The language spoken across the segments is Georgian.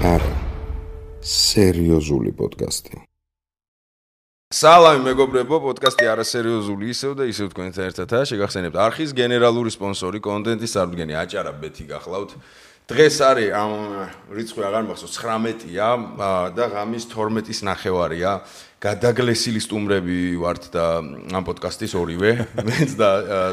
არა სერიოზული პოდკასტი. სალამი მეგობრებო, პოდკასტი არასერიოზული ისევ და ისევ თქვენთან ერთადაა. შეგახსენებთ არხის გენერალური სპონსორი, კონტენტის სარდგენი აჭარა ბეთი გახლავთ. დღეს არის ამ რიცხვი აღარ მახსოვს 19-ია და ღამის 12-ის ნახევარია. გადაგლესილი სტუმრები ვართ და ამ პოდკასტის ორივე, მეც და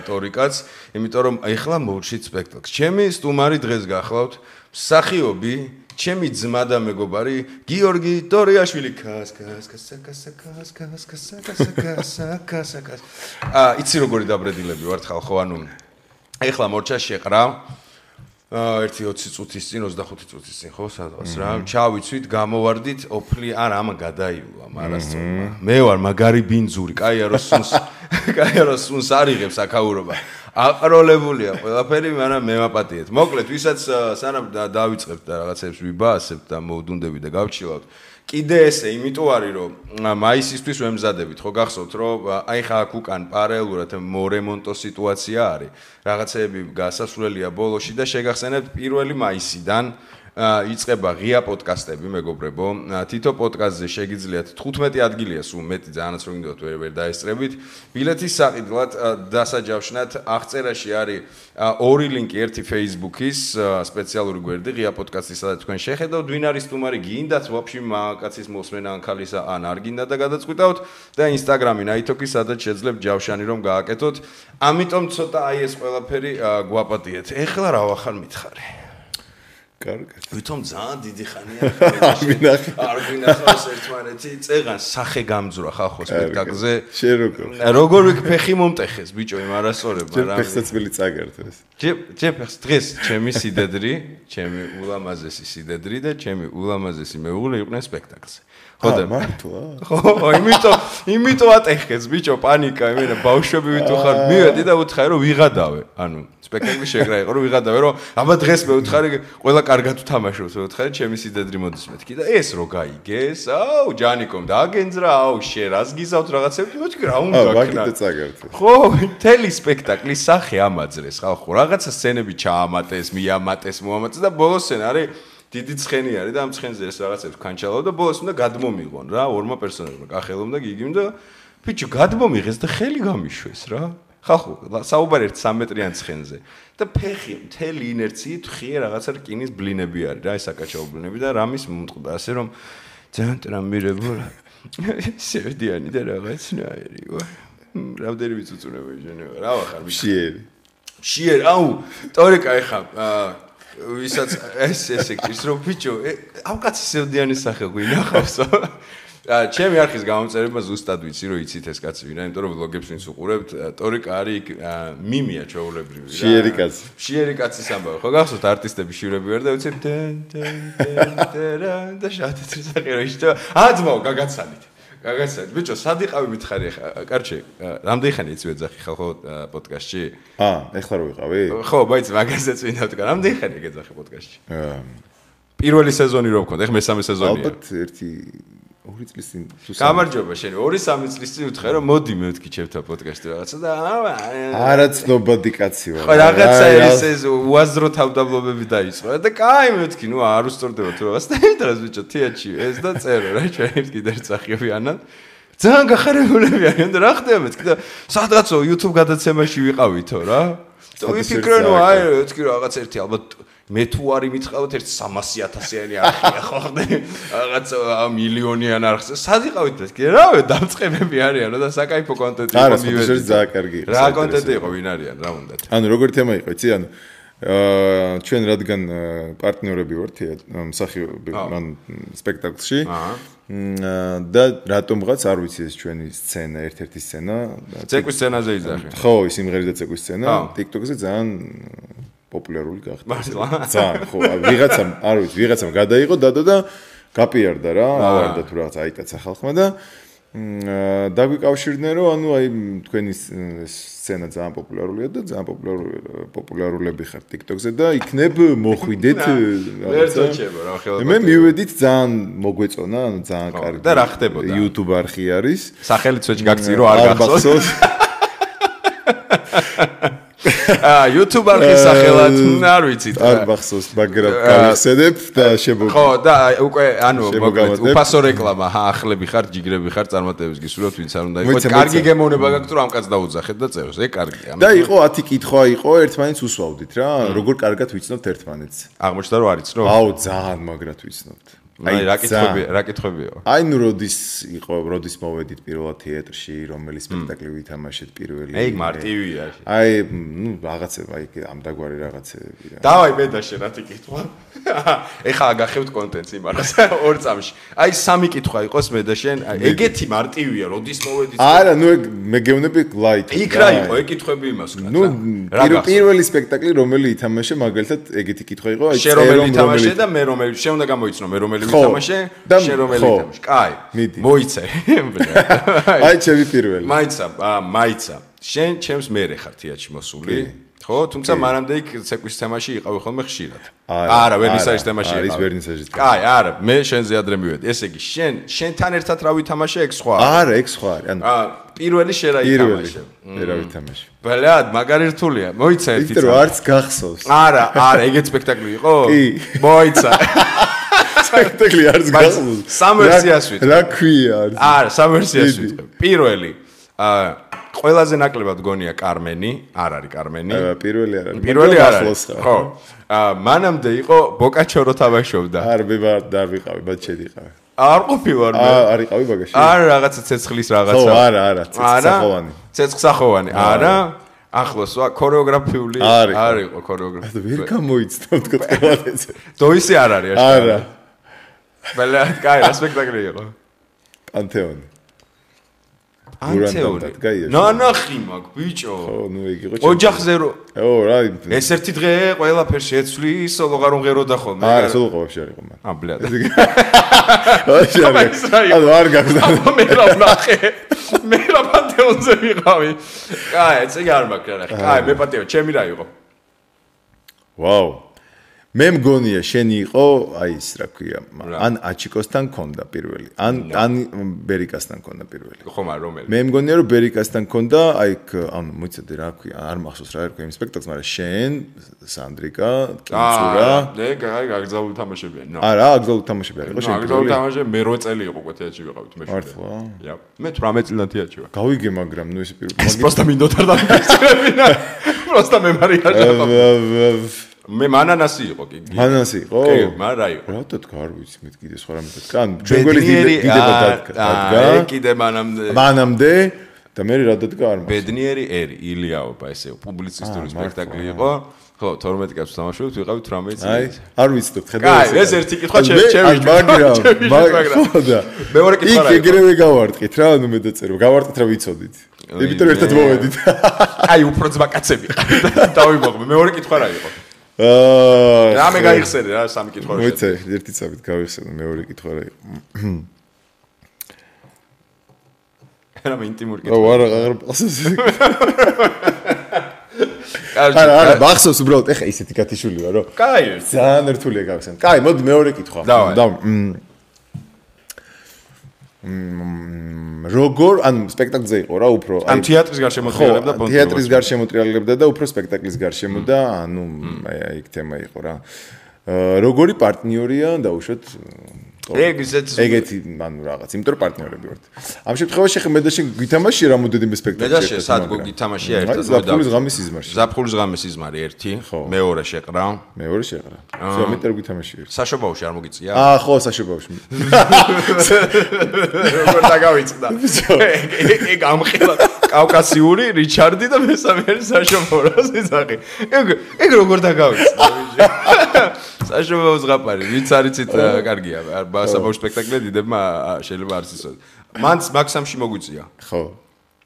ტორიკაც, იმიტომ რომ ეხლა მოვშით სპექტაკლს. ჩემი სტუმარი დღეს გახლავთ მსახიობი ჩემი ძმა და მეგობარი გიორგი დორიაშვილი იცი როგორი დაბრედილები ვართ ხალხო, ანუ ეხლა მორჩა შეყრა 1-20 წუთის წინ, 25 წუთის წინ, ხო, სადღაც რა, ჩავიცვით, გამოვარდით, ოფლი არ ამა გადაიულა, მარასწორმა. მე ვარ მაგარი ბინძური, კაიაროს სუნს არიღებს აქაურობა. აყროლებულია ყველაფერი, მაგრამ მე ვაპატიეთ. მოკლედ, ვისაც სანამ დავიწყებთ და რაღაცებს ვიბაასებთ და მოვდუნდები და გავჩილავთ. კიდე ესე, იმიტომ არის, რომ მაისისთვის ვემზადებით, ხო გახსოვთ, რომ აი ხა აქ უკან პარალელურად მორემონტო სიტუაცია არის. რაღაცეები გასასვლელია ბოლოში და შეგახსენებთ 1 მაისიდან იწყება ღია პოდკასტები, მეგობრებო. თითო პოდკასტზე შეგიძლიათ 15 ადგილია სულ მეტი, ძალიანაც რომ გინდათ ვერ დაესწრებით. ბილეთის საყიდლად დასაჯავშნად აღწერაში არის ორი ლინკი, ერთი Facebook-ის სპეციალური გვერდი ღია პოდკასტის, სადაც თქვენ შეხედავთ ვინ არის სტუმარი, გინდათ ვაფშე მაკაცის მოსმენა ან ქალისა, ან არ გინდა და გადაწყვიტავთ და Instagram-ი ნაითოკი, სადაც შეძლებთ ჯავშანი რომ გააკეთოთ. ამიტომ ცოტა აი ეს ყველაფერი გვაპატიეთ. ეხლა რა ვახარ მითხარი? კარგად. ვითომ ძალიან დიდი ხანია არ გვინახავს ერთმანეთი, წეღან სახე გამძვრა ხალხო სპექტაკლზე. როგორ ვიქფეხი მომტეხეს ბიჭო იმ არასწორებ, მაგრამ ფეხსაცმელი წაგერთეს. ჯეფეხს დღეს ჩემი სიდედრი, ჩემი ულამაზესი სიდედრი და ჩემი ულამაზესი მეუღლე იყვნენ სპექტაკლზე. ხო და მართლა? ხო, იმიტომ ატეხეს ბიჭო, პანიკა, იმენა ბავშვები ვით უხარ, მივედი და უთხარი რომ ვიღადავე. ანუ სპექტაკლი შეგრა იყო რომ ვიღადავე, რომ აბა დღეს მე უთხარი ყველა კარგად უთამაშობს, მე უთხარი ჩემი სიდედრი მოდის მეთქი და ეს რო გაიგეს, აუ ჯანიკომ დააგენძრა, აუ შე რას გიზავთ რაღაცები, მეთქი რა უნდა ქნა. ხო, მთელი სპექტაკლის სახე ამაძრეს ხალხო, რაღაცა სცენები ჩაამატეს, მიამატეს, მოამატეს და ბოლოს სცენა არის დიდი ცხენი არის და ამ ცხენზე ეს რაღაცებს ქანჩალავ და ბოლოს უნდა გადმომიღონ რა, ორმა პერსონაჟმა, კახელომ და გიგიმ და ბიჭო გადმომიღეს და ხელი გამიშვეს რა. ხალხო, საუბარი ერთ 3 მეტრიან ცხენზე და ფეხი მთელი ინერციით ხია რაღაცა რკინის ბლინები არის რა, ეს აკაჩაო ბლინები და რამის მომწყდა ასე რომ ძალიან ტრამირებო სევდიანი და რაღაცნაირი ვარ. რამდენი წუწუნები ჟენება რა ვახარ მშიერი აუ ტორიკა ეხა ვისაც ესე ის რომ ბიჭო ამ კაცის სევდიანის სახე გვინახავსო. ჩემი არხის გამომწერება ზუსტად ვიცი რომ იცით ეს კაცი ვინა, იმიტომ რომ ვლოგებს ვინც უყურებთ, ტორიკა არის მიმია ჩვეულებრივი რა. შიერი კაცის ამბავი. ხო გახსოვთ არტისტები შიურები ვერ და ვიცი და შატეთრი სახე რა ისე აძმაო გაგაცანით. ბიჭო, სად იყავი მითხარი ახლა? კარჩე, რამდენი ხანი იცი ვეძახი ხალხო პოდკასტში? ეხლა რო ვიყავი? ხო, მაინც მაგასაც ვინდა ვთქვა. რამდენი ხანი გეძახი პოდკასტში? პირველი სეზონი რო ვქონდა, ეხლა მესამე სეზონია. ალბათ 2 წლის წინ. გამარჯობა შენ, 2-3 წლის წინ ვთხარ რომ მოდი მე ვთქი ჩემთან პოდკასტში რაღაცა და არაცნობადი კაცი ვარ. ხო, რაღაცა ეს უაზრო თავდაბლობები დაიწყო და კაი მე ვთქი, ნუ არ უსწორდება თუ რაღაც და იმდროს ბიჭო, თეატრში ეს და წერო რა, ჩვენ კიდე წახიები ანან. ძალიან გახარებულები არიან და რა ხდება მეთქი და სადღაცო YouTube გადაცემაში ვიყავითო რა. და ვიფიქრე ნუ აი ვთქი რაღაც ერთი ალბათ მე თუ არი მითხავთ ერთ 300,000-იანი არხია ხო ხდე რაღაც მილიონიან არხზე სად იყავით მეთქი რავი დამწყებები არიანო და საკაიფო კონტენტი იყო მივედი ძალიან კარგი იყო რა კონტენტი იყო ვინ არიან რა უნდათ ანუ როგორი თემა იყო იცი ანუ ჩვენ რადგან პარტნიორები ვართ მსახიობები მან სპექტაკლში და რატომღაც არ ვიცი ეს ჩვენი სცენა ერთ-ერთი სცენა ცეკვის სცენაზე იძახი ხო ის იმღერი და ცეკვის სცენა TikTok-ზე ძალიან პოპულარული გახდა. ძალიან ხო, ვიღაცამ, არ ვიცი, ვიღაცამ გადაიღო დადო და გაპიარდა რა, ავარდა თუ რაღაც აიტაცა ხალხმა და დაგვიკავშირდნენ რომ ანუ აი თქვენი სცენა ძალიან პოპულარულია და ძალიან პოპულარულები ხართ TikTok-ზე და იქნებ მოხვიდეთ ვერცოჩება რა ხელა. მე მივედით ძალიან მოგვეწონა, ანუ ძალიან კარგი. და რა ხდებოდა? YouTube არხი არის. სახელიც ვეჭ გაგწირო არ გახსოვს. YouTube არხის სახელად არ ვიცით. არ მახსოვს, მაგრამ გავიხსენებ და ხო, და უკვე ანუ მოკლედ უფასო რეკლამა, ახლები ხარ, ჯიგრები ხარ, წარმატებებს გისურვებთ, ვინც არ უნდა იყოს. კარგი გემოვნება გაქვთ, რომ ამ კაცს დაუძახეთ და წეროს. ეგ კარგია. და იყო 10 კითხვა იყო, ერთმანეთს უსვავდით რა, როგორ კარგად ვიცნობთ ერთმანეთს. აღმოჩნდა რომ არ იცნობ? აუ, ძალიან მაგრად ვიცნობთ. აი რა კითხვებია? აი ნუ როდის მოვედით პირველად თეატრში, რომელი სპექტაკლი ვითამაშეთ პირველი. ეგ მარტივია. აი ნუ რაღაცება აი ამ დაგვარი რაღაცეები რა. დავაი მე და შენ რათი კითხვა? ეხლა გახევთ კონტენტს იმარას 2 წამში. აი 3 კითხვა იყოს მე და შენ, ეგეთი მარტივია, როდის მოვედით? არა, ნუ ეგ მე გეუბნები ლაით. იქ რა იყო, ეგ კითხვები იმას ვკაც. ნუ პირველი სპექტაკლი რომელი ითამაშე, მაგალითად ეგეთი კითხვა იყო, აი შენ რომელი ითამაშე და მე რომელი, შენ უნდა გამოიცნო მე რომელი ვითამაშე, შენ რომელი ითამაშე. კაი. მოიცე. აი ჩემი პირველი. მაიცა. შენ ჩემს მერე ხარ თეატრში მოსული. ხო, თუმცა მანამდე იქ ცეკვის თემაში იყავი ხოლმე ხშირად. არა, ვერნისაჟის თემაში იყავი. არის ვერნისაჟის თემა. კაი, არა, მე შენზე ადრე მივედი. ესე იგი, შენთან ერთად რა ვითამაშე, ეგ სხვა. არა, ეგ სხვა არის. ანუ პირველი შენ რა ითამაშე. რა ვითამაშე. ბლად, მაგარი რთულია. მოიცა ერთი. იმიტომ რომ არც გახსოვს. არა, ეგეც სპექტაკლი იყო? კი. მოიცა. სპექტაკლი არც გახსოვს. სამ ვერსიას ვიტყვი. რა ქვია არის? არა, სამ ვერსიას ვიტყვი. პირველი ყველაზე ნაკლებად გონია კარმენი, არ არის კარმენი. პირველი არ არის. პირველი არ არის. ხო. მანამდე იყო ბოკაჩორო თამაშობდა. არ არ ვიყავი, բայց შედიყავი. არ ყოფილვარ მე. არ იყავი ბაგაში. არა, რაღაცა ცეცხლის რაღაცა. ხო, არა, ცეცხლსახოვანი. ცეცხლსახოვანი. არა. ახლოს ქორეოგრაფიული არ იყო ქორეოგრაფია. ვერ გამოიცნობ თქო ყველაფერზე. დოისი არ არის აშკარა. არა. ბლად, კაი, რა სპექტაკლი იყო? პანთეონი. პანთეონი. ნანახი მაგ ბიჭო. ხო, ნუ ეგ იყო. ოჯახზე რო. ო, რა. ეს ერთი დღე ყველაფერს შეცვლის, სოლოღარ უნღეროდა ხოლმე. არა, სოლოღავში არ იყო მან. ბლად. ანუ არ გაგზავნა. მე რა ვნახე. მე რა პანთეონზე ვიყავი. კაი, ესე არ მაქვს რა. კაი, მე პატიო, ჩემი რა იყო? ვაუ. მე მგონია შენი იყო, აი ის რა ქვია, ან აჩიკოსთან ქონდა პირველი, ან ბერიკასთან ქონდა პირველი. ხო, მაგრამ რომელი? მე მგონია რომ ბერიკასთან ქონდა, აი ანუ მოიცადე რა ქვია, არ მახსოვს რა ერქვა იმ სპექტაკლს, მაგრამ შენ, სანდრიკა, კინცურა. ნე, აი გაგზავნილ თამაშებიან. არა, აგზავნილ თამაშებიან იყო შენ. აგზავნილ თამაშები მე 8 წელი იყო თეატრში ვიყავით მე. მართლა? მე 18 წლიდან თეატრში ვარ. გავიგე, მაგრამ ნუ ეს პირველი. ეს პროსტა მინდოდა და მიგწევინა. პროსტა მე მარია ჟაბა. მე მანანასი იყო კი. მანანასი იყო? კი, მაგრამ რა იყო? რატო თქვა არ ვიცი, მე კიდე სხვა რამე თქვა. ან ჩვენ გველი დიდება დადგა. კიდე მანამდე. მანამდე და მე რა დადგა არ მახსოვს. ბედნიერი ერი, ილიაობა ესე პუბლიცისტური სპექტაკლი იყო. ხო, 12 კაცს თამაშობთ, ვიყავით 18 წელი. აი, არ ვიცნობთ, ხედავ ეს. კაი, ეს ერთი კითხვა ჩემი. მაგრამ ხოდა. მეორე კითხვა რა იყო? იქ ეგრევე გავარტყით რა, ანუ მე დაწერო. გავარტყით რა ვიცოდით. იმიტომ რომ ერთად მოვედით. აი, უფრო ძმა კაცები. დავიმოღმე. მეორე კითხვა რა იყო? რა მე გაიხსენე რა სამი კითხვა რა მოიცე ერთი წამით გავიხსენე მეორე კითხვა რა იყო რა მე ინტიმური კითხვა ო აღარ მახსოვს არა მახსოვს უბრალოდ ეხა ისეთი გათიშული ვარ რომ კაი ძალიან რთულია გავიხსენე კაი მოდი მეორე კითხვა როგორ ან სპექტაკლზე იყო რა უფრო ან თეატრის გარშემოტრიალებდა პონტი თეატრის გარშემოტრიალებდა და უფრო სპექტაკლის გარშემო და ანუ აი იქ თემა იყო რა როგორი პარტნიორია დაუშვათ ეგეთი ანუ რაღაც იმიტომ რომ პარტნიორები ვართ ამ შემთხვევაში ხე მე და შენ გვითამაშე რამოდენიმე სპექტაკლი მე და შენ სად გითამაშია ერთად ზაფხულის ღამის სიზმარში ზაფხულის ღამის სიზმარი ერთი მეორე შეყრა მეტად გვითამაშე ერთი საშობაოში არ მოგიწია ხო საშობაოში როგორ დაგავიწყდა ეგ ამხელა კავკასიური რიჩარდი და მესამე არის საშობაო რა სიზაღი ეგ როგორ დაგავიწყდა საშობაო ზღაპარი ვიც არიცით კარგია საბავშვო სპექტაკლი დიდებმა შეიძლება არ იცოდეთ. მან მაქსიმში მოგვიწია. ხო.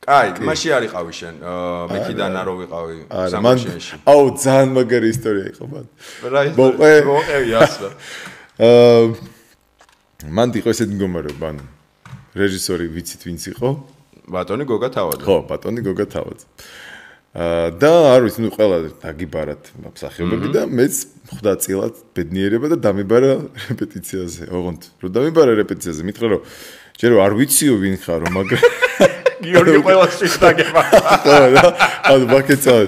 კაი, მაშინ არ იყავი შენ. მექიდან არ ვიყავი სამშენში. აუ, ძალიან მაგარი ისტორია იყო მან. რა ისტორია? მოყევი ასლა. მან იყო ესეთი მდგომარეობა, ანუ რეჟისორი ვიცით ვინც იყო? ბატონი გოგა თავაძე. ხო, ბატონი გოგა თავაძე. და არ ვიცი, ნუ ყველა დაგიბარათ მსახიობები და მეც ხვდა წილად ბედნიერება და დამიბარა რეპეტიციაზე. ოღონდ, რომ დამიბარა რეპეტიციაზე, მითხრა რომ ჯერო არ ვიციო ვინ ხარო, მაგრამ გიორგი ყველას შეგდაგება. ხო რა, ანუ ბაკეცავ.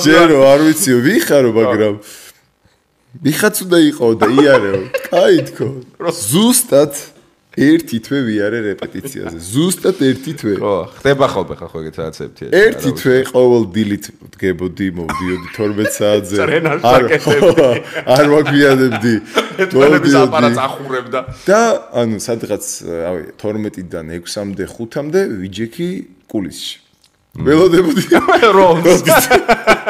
ჯერ არ ვიცი ვიხარო, მაგრამ ვიხაც უნდა იყო და იარეო. კაი თქო. ზუსტად ერთი თვე ვიარე რეპეტიციაზე. ზუსტად ერთი თვე. ხო, ხდება ხოლმე ხო ეგეთ რაღაცებია. ერთი თვე ყოველ დილით დგებოდი, მოვდიოდი 12 საათზე. არ მაგვიანებდი. მეთვალების აპარატს ახურებდა. და ანუ სადღაც, რავი, 12-დან 6-მდე, 5-მდე ვიჯექი კულისში. ველოდებოდი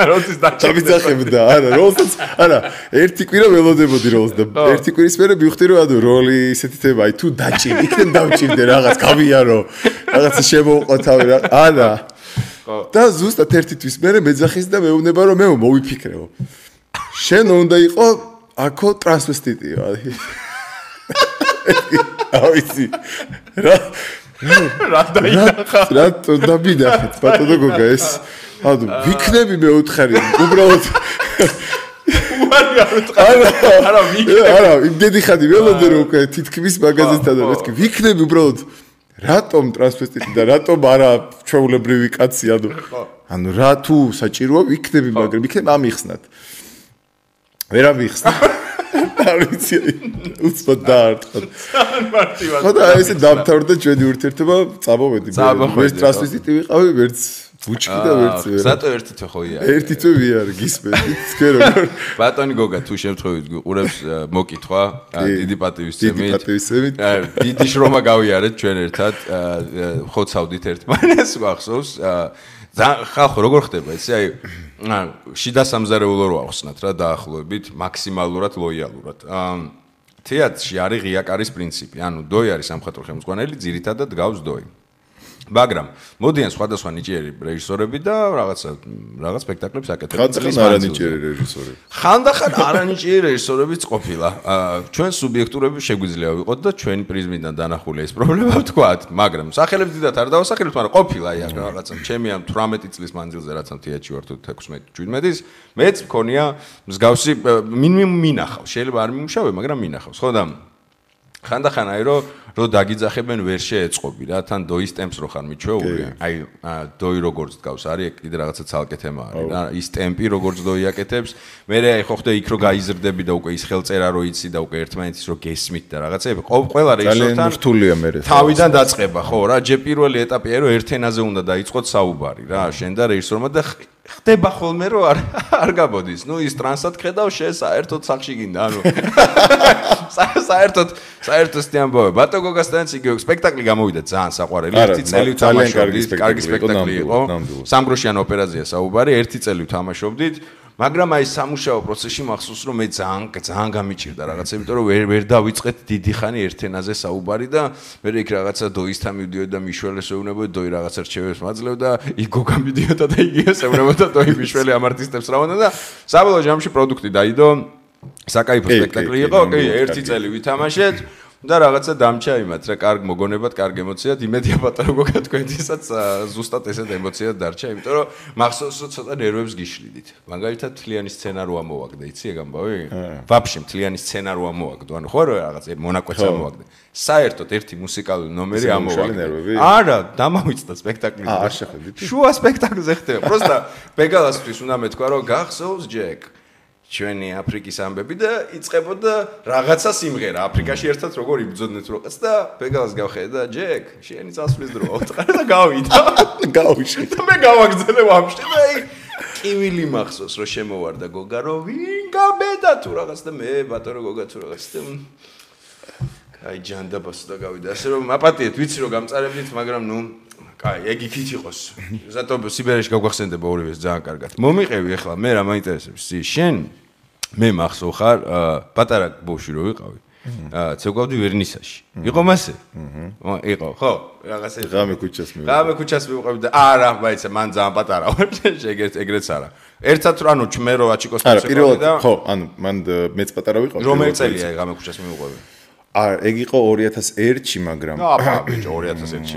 როლს დაჭამდა არა როლსაც არა ერთი კვირა ველოდებოდი როლს და ერთი კვირის მერე მივხვდი რომ ანუ როლი ისეთი თემა აი თუ დაჭირ იქნებ დავჭირდე რაღაც გავიარო რაღაცა შემოვყვათავი რა არა და ზუსტად ერთი თვის მერე მეძახის და მეუბნება რომ მე მოვიფიქრეო შენ უნდა იყო აქო ტრანსვესტიტიო ავიცი რა რა დაინახა რა დავინახეთ ბატონო გოგა ეს ანუ ვიქნები მე უთხარი უბრალოდ არა ვიქნები არა იმდენი ხადი ველოდე რომ უკვე თითქმის მაგაზესთან და მეთქი ვიქნები უბრალოდ რატომ ტრანსვესტიტი და რატომ არა ჩვეულებრივი კაცი ანუ რა თუ საჭიროა ვიქნები მაგრამ ვიქნები ამიხსნათ ვერ ამიხსნა არ ვიცი უცბად დაარტყა ხო და ესე დამთავრდა ჩვენი ურთიერთობა წამოვედი ვერც ტრანსვესტიტი ვიყავი ვერც ბუჩკი და ვერც ზატო ერთი თვე ხო იარე ერთი თვე ვიარე გისმენთ თქვენ როგორ ბატონი გოგა თუ შემთხვევით გიყურებს მოკითხვა დიდი პატივისცემით დიდი შრომა გავიარეთ ჩვენ ერთად ხოცავდით ერთმანეს ვახსოვს ხალხო როგორ ხდება ესე აი შიდა სამზარეულო რო ახსნათ რა დაახლოებით მაქსიმალურად ლოიალურად თეატრში არის ღია-კარის პრინციპი ანუ დოი არის სამხატვრო ხელმძღვანელი ძირითადად გავს დოი მაგრამ მოდიან სხვადასხვა ნიჭიერი რეჟისორები და რაღაც სპექტაკლებს აკეთებენ ხანდახან არანიჭიერი რეჟისორები ხანდახან არანიჭიერი რეჟისორებიც ყოფილა ჩვენ სუბიექტურები შეგვიძლია ვიყოთ და ჩვენი პრიზმიდან დანახული ეს პრობლემა ვთქვათ მაგრამ სახელებს დიდად არ დავასახელებთ მაგრამ ყოფილა აი რაღაცა ჩემი ამ 18 წლის მანძილზე რაც ამ თეატრში ვარ თუ 16-17-ის მეც მქონია მსგავსი მინახავს შეიძლება არ მიმუშავე მაგრამ მინახავს ხო და ხანდახან აი რომ დაგიძახებენ ვერ შეეწყობი რა თან დოის ტემპს რო ხარ მიჩვეული აი დოი როგორც დგავს არის კიდე რაღაცა ცალკე თემა არის რა ის ტემპი როგორც დოი აკეთებს მე აი ხო ხდა იქ რო გაიზრდები და უკვე ის ხელწერა რო იცი და უკვე ერთმანეთის რო გესმით და რაღაცები ყველა რეჟისორთან რთულია მე თავიდან დაწყება ხო რა ჯერ პირველი ეტაპია რომ ერთ ენაზე უნდა დაიწყოთ საუბარი რა შენ და რეჟისორმა და ხდება ხოლმე რომ არ გაბოდის ნუ ის ტრანსად ხედავ შენ საერთოდ სახში გინდა ანუ საერთოდ სტიამბოვე ბატო გოგასთან იგივე სპექტაკლი გამოვიდა ძალიან საყვარელი ერთი წელი ვთამაშობდით კარგი სპექტაკლი იყო სამგროშიან ოპერაზია საუბარი ერთი წელი ვთამაშობდით მაგრამ აი სამუშაო პროცესში მახსოვს რომ მე ძალიან გამიჭირდა რაღაცა იმიტომ რომ ვერ დავიწყეთ დიდი ხანი ერთ ენაზე საუბარი და მე იქ რაღაცა დოისთან მივდიოდი და მიშველეს ეუბნებოდი დოი რაღაცა რჩევებს მაძლევდა იქ გოგა მიდიოდა და იგივეს ეუბნებოდა დოი მიშველი ამ არტისტებს რა უნდა და საბოლოო ჯამში პროდუქტი დაიდო საკაიფო სპექტაკლი იყო კი ერთი წელი ვითამაშეთ და რაღაცა დამჭა იმათ რა კარგ მოგონებად, კარგ ემოციად, იმედია პატარა გოგა თქვენთვისაც ზუსტად ესეთ ემოციად დარჩა, იმიტომ რომ მახსოვს რომ ცოტა ნერვებს გიშლიდით. მაგალითად მთლიანი სცენა რო ამოვაგდე, იცი ეგ ამბავი? ვაფშე მთლიანი სცენა რო ამოვაგდო, ანუ ხო რა რაღაც მონაკვეთს ამოვაგდე. საერთოდ ერთი მუსიკალური ნომერი ამოვაგდე. არა, დამავიწყდა სპექტაკლი. არ შეხედით? შუა სპექტაკლზე ხდება. პროსტა ბეგალასთვის უნდა მეთქვა რომ გახსოვს ჯეკ ჩვენი აფრიკის ამბები და იწყებოდა რაღაცა სიმღერა აფრიკაში ერთად როგორ იბრძოდნენ როყაც და ბეგალას გავხედე და ჯეკ შენი წასვლის დროა უთხარ და გავიდა გავიშე და მე გავაგზავნე ვაფშე და აი კივილი მახსოვს რომ შემოვარდა გოგა რომ ვინ გაბედა თუ რაღაც და მე ბატონო გოგა თუ რაღაც და აი ჯანდაბას და გავიდა ასე რომ აპატიეთ ვიცი რომ გამწარებდით მაგრამ ნუ კაი, ეგ იქით იყოს. ზატო სიბერეში გავგახსენდება ორივეს ძალიან კარგად. მომიყევი ახლა მე რა მაინტერესებს. შენ მე მახსოვ ხარ პატარა ბავშვი რო ვიყავი. ცეკვავდი ვერნისაში. იყო მასე? იყო, ხო? რაღაცა ღამე ქუჩას მივიყავი. ღამე ქუჩას მივიყავი და არა, მაიცა მან ძალიან პატარა ვარ. ეგრეც არა. ერთად რა ანუ მე რო აჩიკოს პირველად ხო, ანუ მან მეც პატარა ვიყავი. რომელი წელია ღამე ქუჩას მივიყავი? ეგ იყო 2001-ში, მაგრამ აბა ბიჭო 2001-ში.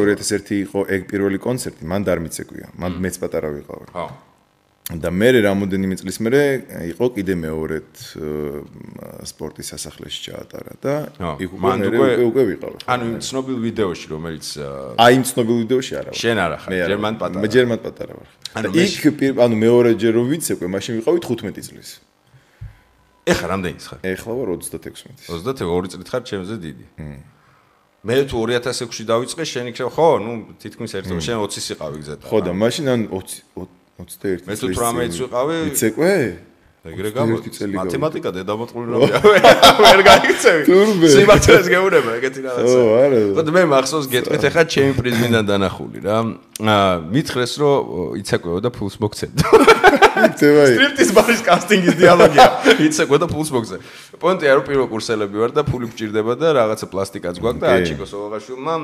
2001 იყო ეგ პირველი კონცერტი, მან არ მიცეკვია. მან მეც პატარა ვიყავი. ხო. და მე რამოდენიმე წლის მერე იყო კიდე მეორედ სპორტის სასახლეში ჩაატარა და იქ უკვე ვიყავ. ანუ იმ ცნობილ ვიდეოში რომელიც აი იმ ცნობილ ვიდეოში არა. შენ არა ხარ, ჯერმან პატარა. მე ჯერმან პატარა ვარ. ანუ მეორეჯერ რომ ვიცეკვე, მაშინ ვიყავი 15 წლის. ეხლა რამდენის ხარ? ეხლა ვარ 36. 22 წლით ხარ ჩემზე დიდი. მე თუ 2006-ში დავიწყე, შენ იქ ხო, ნუ თითქმის ერთ შენ 20-ის იყავი გზად. ხო და მაშინ ან 21 მე თუ 18-ს ვიყავი. ვიცეკვე? ეგრე გამოდი. მათემატიკა დედამოწყული რამეა. ვერ გაიქცევი. სიმართლეს გეუბნება ეგეთი რაღაცა. ო, არა. ხო და მე მახსოვს გეტყვით ახლა ჩემი პრიზმიდან დანახული რა. მითხრეს რომ იცეკვეო და ფულს მოგცემდა. სტრიპტის ბარის კასტინგის დიალოგია. იცეკვე და ფულს მოგცემ. პონტია რომ პირველ კურსელები ვარ და ფული გჭირდება და რაღაცა პლასტიკაც გვაქვს და აჩიკო სოლოღაშვილმა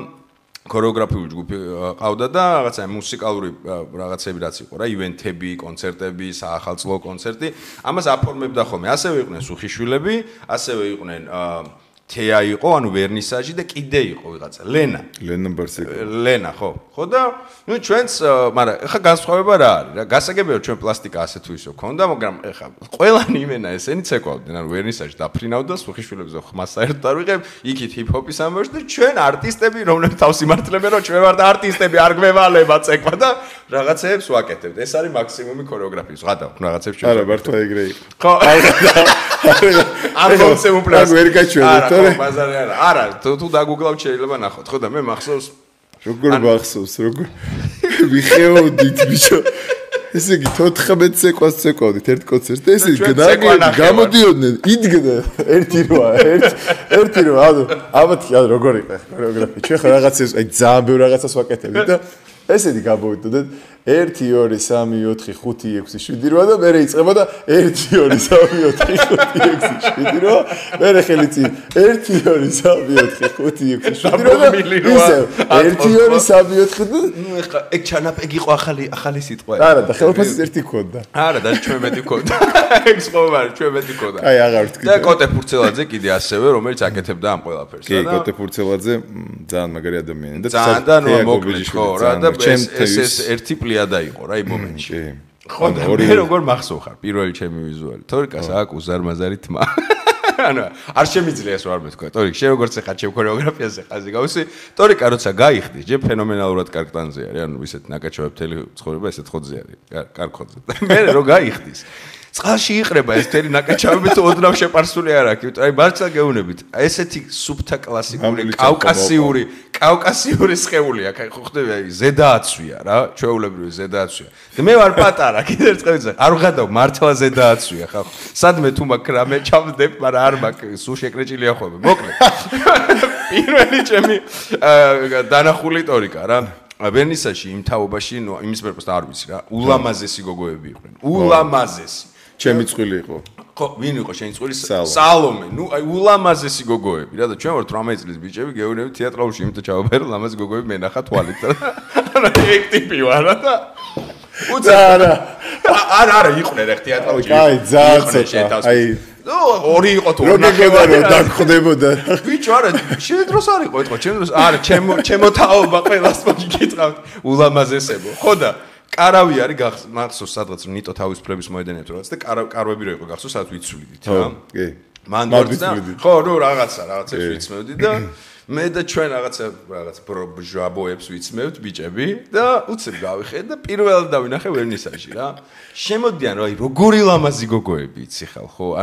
ქორეოგრაფიული ჯგუფი ყავდა და რაღაცა მუსიკალური რაღაცები რაც იყო რა, ივენთები, კონცერტები, საახალწლო კონცერტი, ამას აფორმებდა ხოლმე. ასევე იყვნენ სუხიშვილები, ასევე იყვნენ თეა იყო, ანუ ვერნისაჟი და კიდე იყო ვიღაცა, ლენა ბარსეკი. ლენა, ხო. ხო და ნუ ჩვენც, მაგრამ ეხა განსხვავება რა არის რა? გასაგებია ჩვენ პლასტიკა ასე თუ ისე ქონდა, მაგრამ ეხა ყველანი იმენა ესენი ცეკვავდნენ, ანუ ვერნისაჟი დაფრინავდა, სუხიშვილებზე ხმას საერთოდ არ ვიღებ, იქით ჰიპ-ჰოპის ამბავში და ჩვენ არტისტები, რომლებიც თავს იმართლებენ, რომ ჩვენ ვართ არტისტები, არ გვევალება ცეკვა და რაღაცეებს ვაკეთებთ. ეს არის მაქსიმუმი ქორეოგრაფიის. ვღადავ რაღაცებს ჩვენ. არა, მართლა ეგრე იყო. ხო. არ მომწეუპლას. ვერ გაჩვენეთ, არა, ბაზარი არა. არა, თუ დაგუგლავთ შეიძლება ნახოთ. ხო და მე მახსოვს როგორ მახსოვს, როგორ ვიხეოდით ბიჭო. ესე იგი 14 ცეკვას ცეკვავდით ერთ კონცერტს და ესე გამოდიოდნენ, იდგნენ ერთი როა, ანუ ალბათ როგორ იყო ქორეოგრაფია. ჩვენ ხა რაღაცებს, აი ძალიან ბევრ რაღაცას ვაკეთებდით და ესეთი გამოვიდოდეთ 1 2 3 4 5 6 7 8 და მე რეიწყება და 1 2 3 4 5 6 7 8 მე ხელი წინ 1 2 3 4 5 6 7 8 და ისე 1 2 3 4 და ნუ ეხლა ეგ ჩანაპეგი იყო ახალი სიტყვა. არა და ხელფასის ერთი ქონდა. არა და ჩვენ მეტი ქონდა. ეგ სხვა ჩვენ მეტი ქონდა. აი აღარ ვთქვი. და კოტე ფურცელაძე კიდე ასევე რომელიც აკეთებდა ამ ყველაფერს. კი, კოტე ფურცელაძე ძალიან მაგარი ადამიანი და ძალიან მოკლედ ხო რა და ეს ერთი პლიადა იყო რა იმ მომენტში. ხო და მე როგორ მახსოვ ხარ პირველი ჩემი ვიზუალი. თორიკას აქვს უზარმაზარი თმა. ანუ არ შემიძლია ეს ვარ მეთქვა. თორიკ შე როგორც ხარ ჩემ ქორეოგრაფიაზე ხაზი გავისი. თორიკა როცა გაიხდის, ჯერ ფენომენალურად კარგტანზე არის. ანუ ისეთ ნაკაჩავებელი ცხოვრება ესეთ ხოძე არის. კარგხოძე. მე რო გაიხდის წყალში იყრება ეს თერი ნაკაჩავები თუ ოდნავ შეპარსული არ აქვს. აი მართლა გეუბნებით. ესეთი სუბთა კლასიკური კავკასიური სხეული აქვს. აი ხო ხდები აი ზედააცვია რა, ჩვეულებრივი ზედააცვია. და მე ვარ პატარა, კიდე ერთ წელიწად არ ვღადავ მართლა ზედააცვია ხა. სადმე თუ მაგ რამე ჩავდებ, მაგრამ არ მაქვს, სულ შეკრეჭილია ხოლმე. მოკლედ. პირველი ჩემი დანახული ტორიკა რა. ვერნისაჟი იმ თაობაში, ნუ იმის პერპოსტა არ ვიცი რა. ულამაზესი გოგოები იყვნენ. ულამაზესი. ჩემი წვილი იყო. ხო, ვინ იყო შენი წვილი? სალომე. ნუ აი ულამაზესი გოგოები რა და ჩვენ ვართ 18 წლის ბიჭები, გეუბნები თეატრალში იმით ჩავაბერო, ლამაზი გოგოები მენახა თვალით და ანუ ეგ ტიპი ვარ და არა იყვნენ ეგ თეატრალში. აი, ძალიან აი ნუ ორი იყო თუ ორნახევარი დაგხვდებოდა. ბიჭო არა, შენ დროს არ იყო ეთქვა, ჩემ დროს არა, ჩემო თაობა ყველას მოგი გიტყავთ. ულამაზესებო. ხო და კარავი არის მახსოვს სადღაც ნიტო თავისუფლების მოედანებთ რაღაც და კარვები რო იყო გახსოვს სადაც ვიცვლიდით რა. კი. მან და ხო, ნუ რაღაცებს ვიცმევდი და მე და ჩვენ რაღაცა ჟაბოებს ვიცმევთ ბიჭები და უცებ გავიხე და პირველად დავინახე ვერნისაჟი რა. შემოდიან რა, როგორი ლამაზი გოგოები იცი ხალ ხო?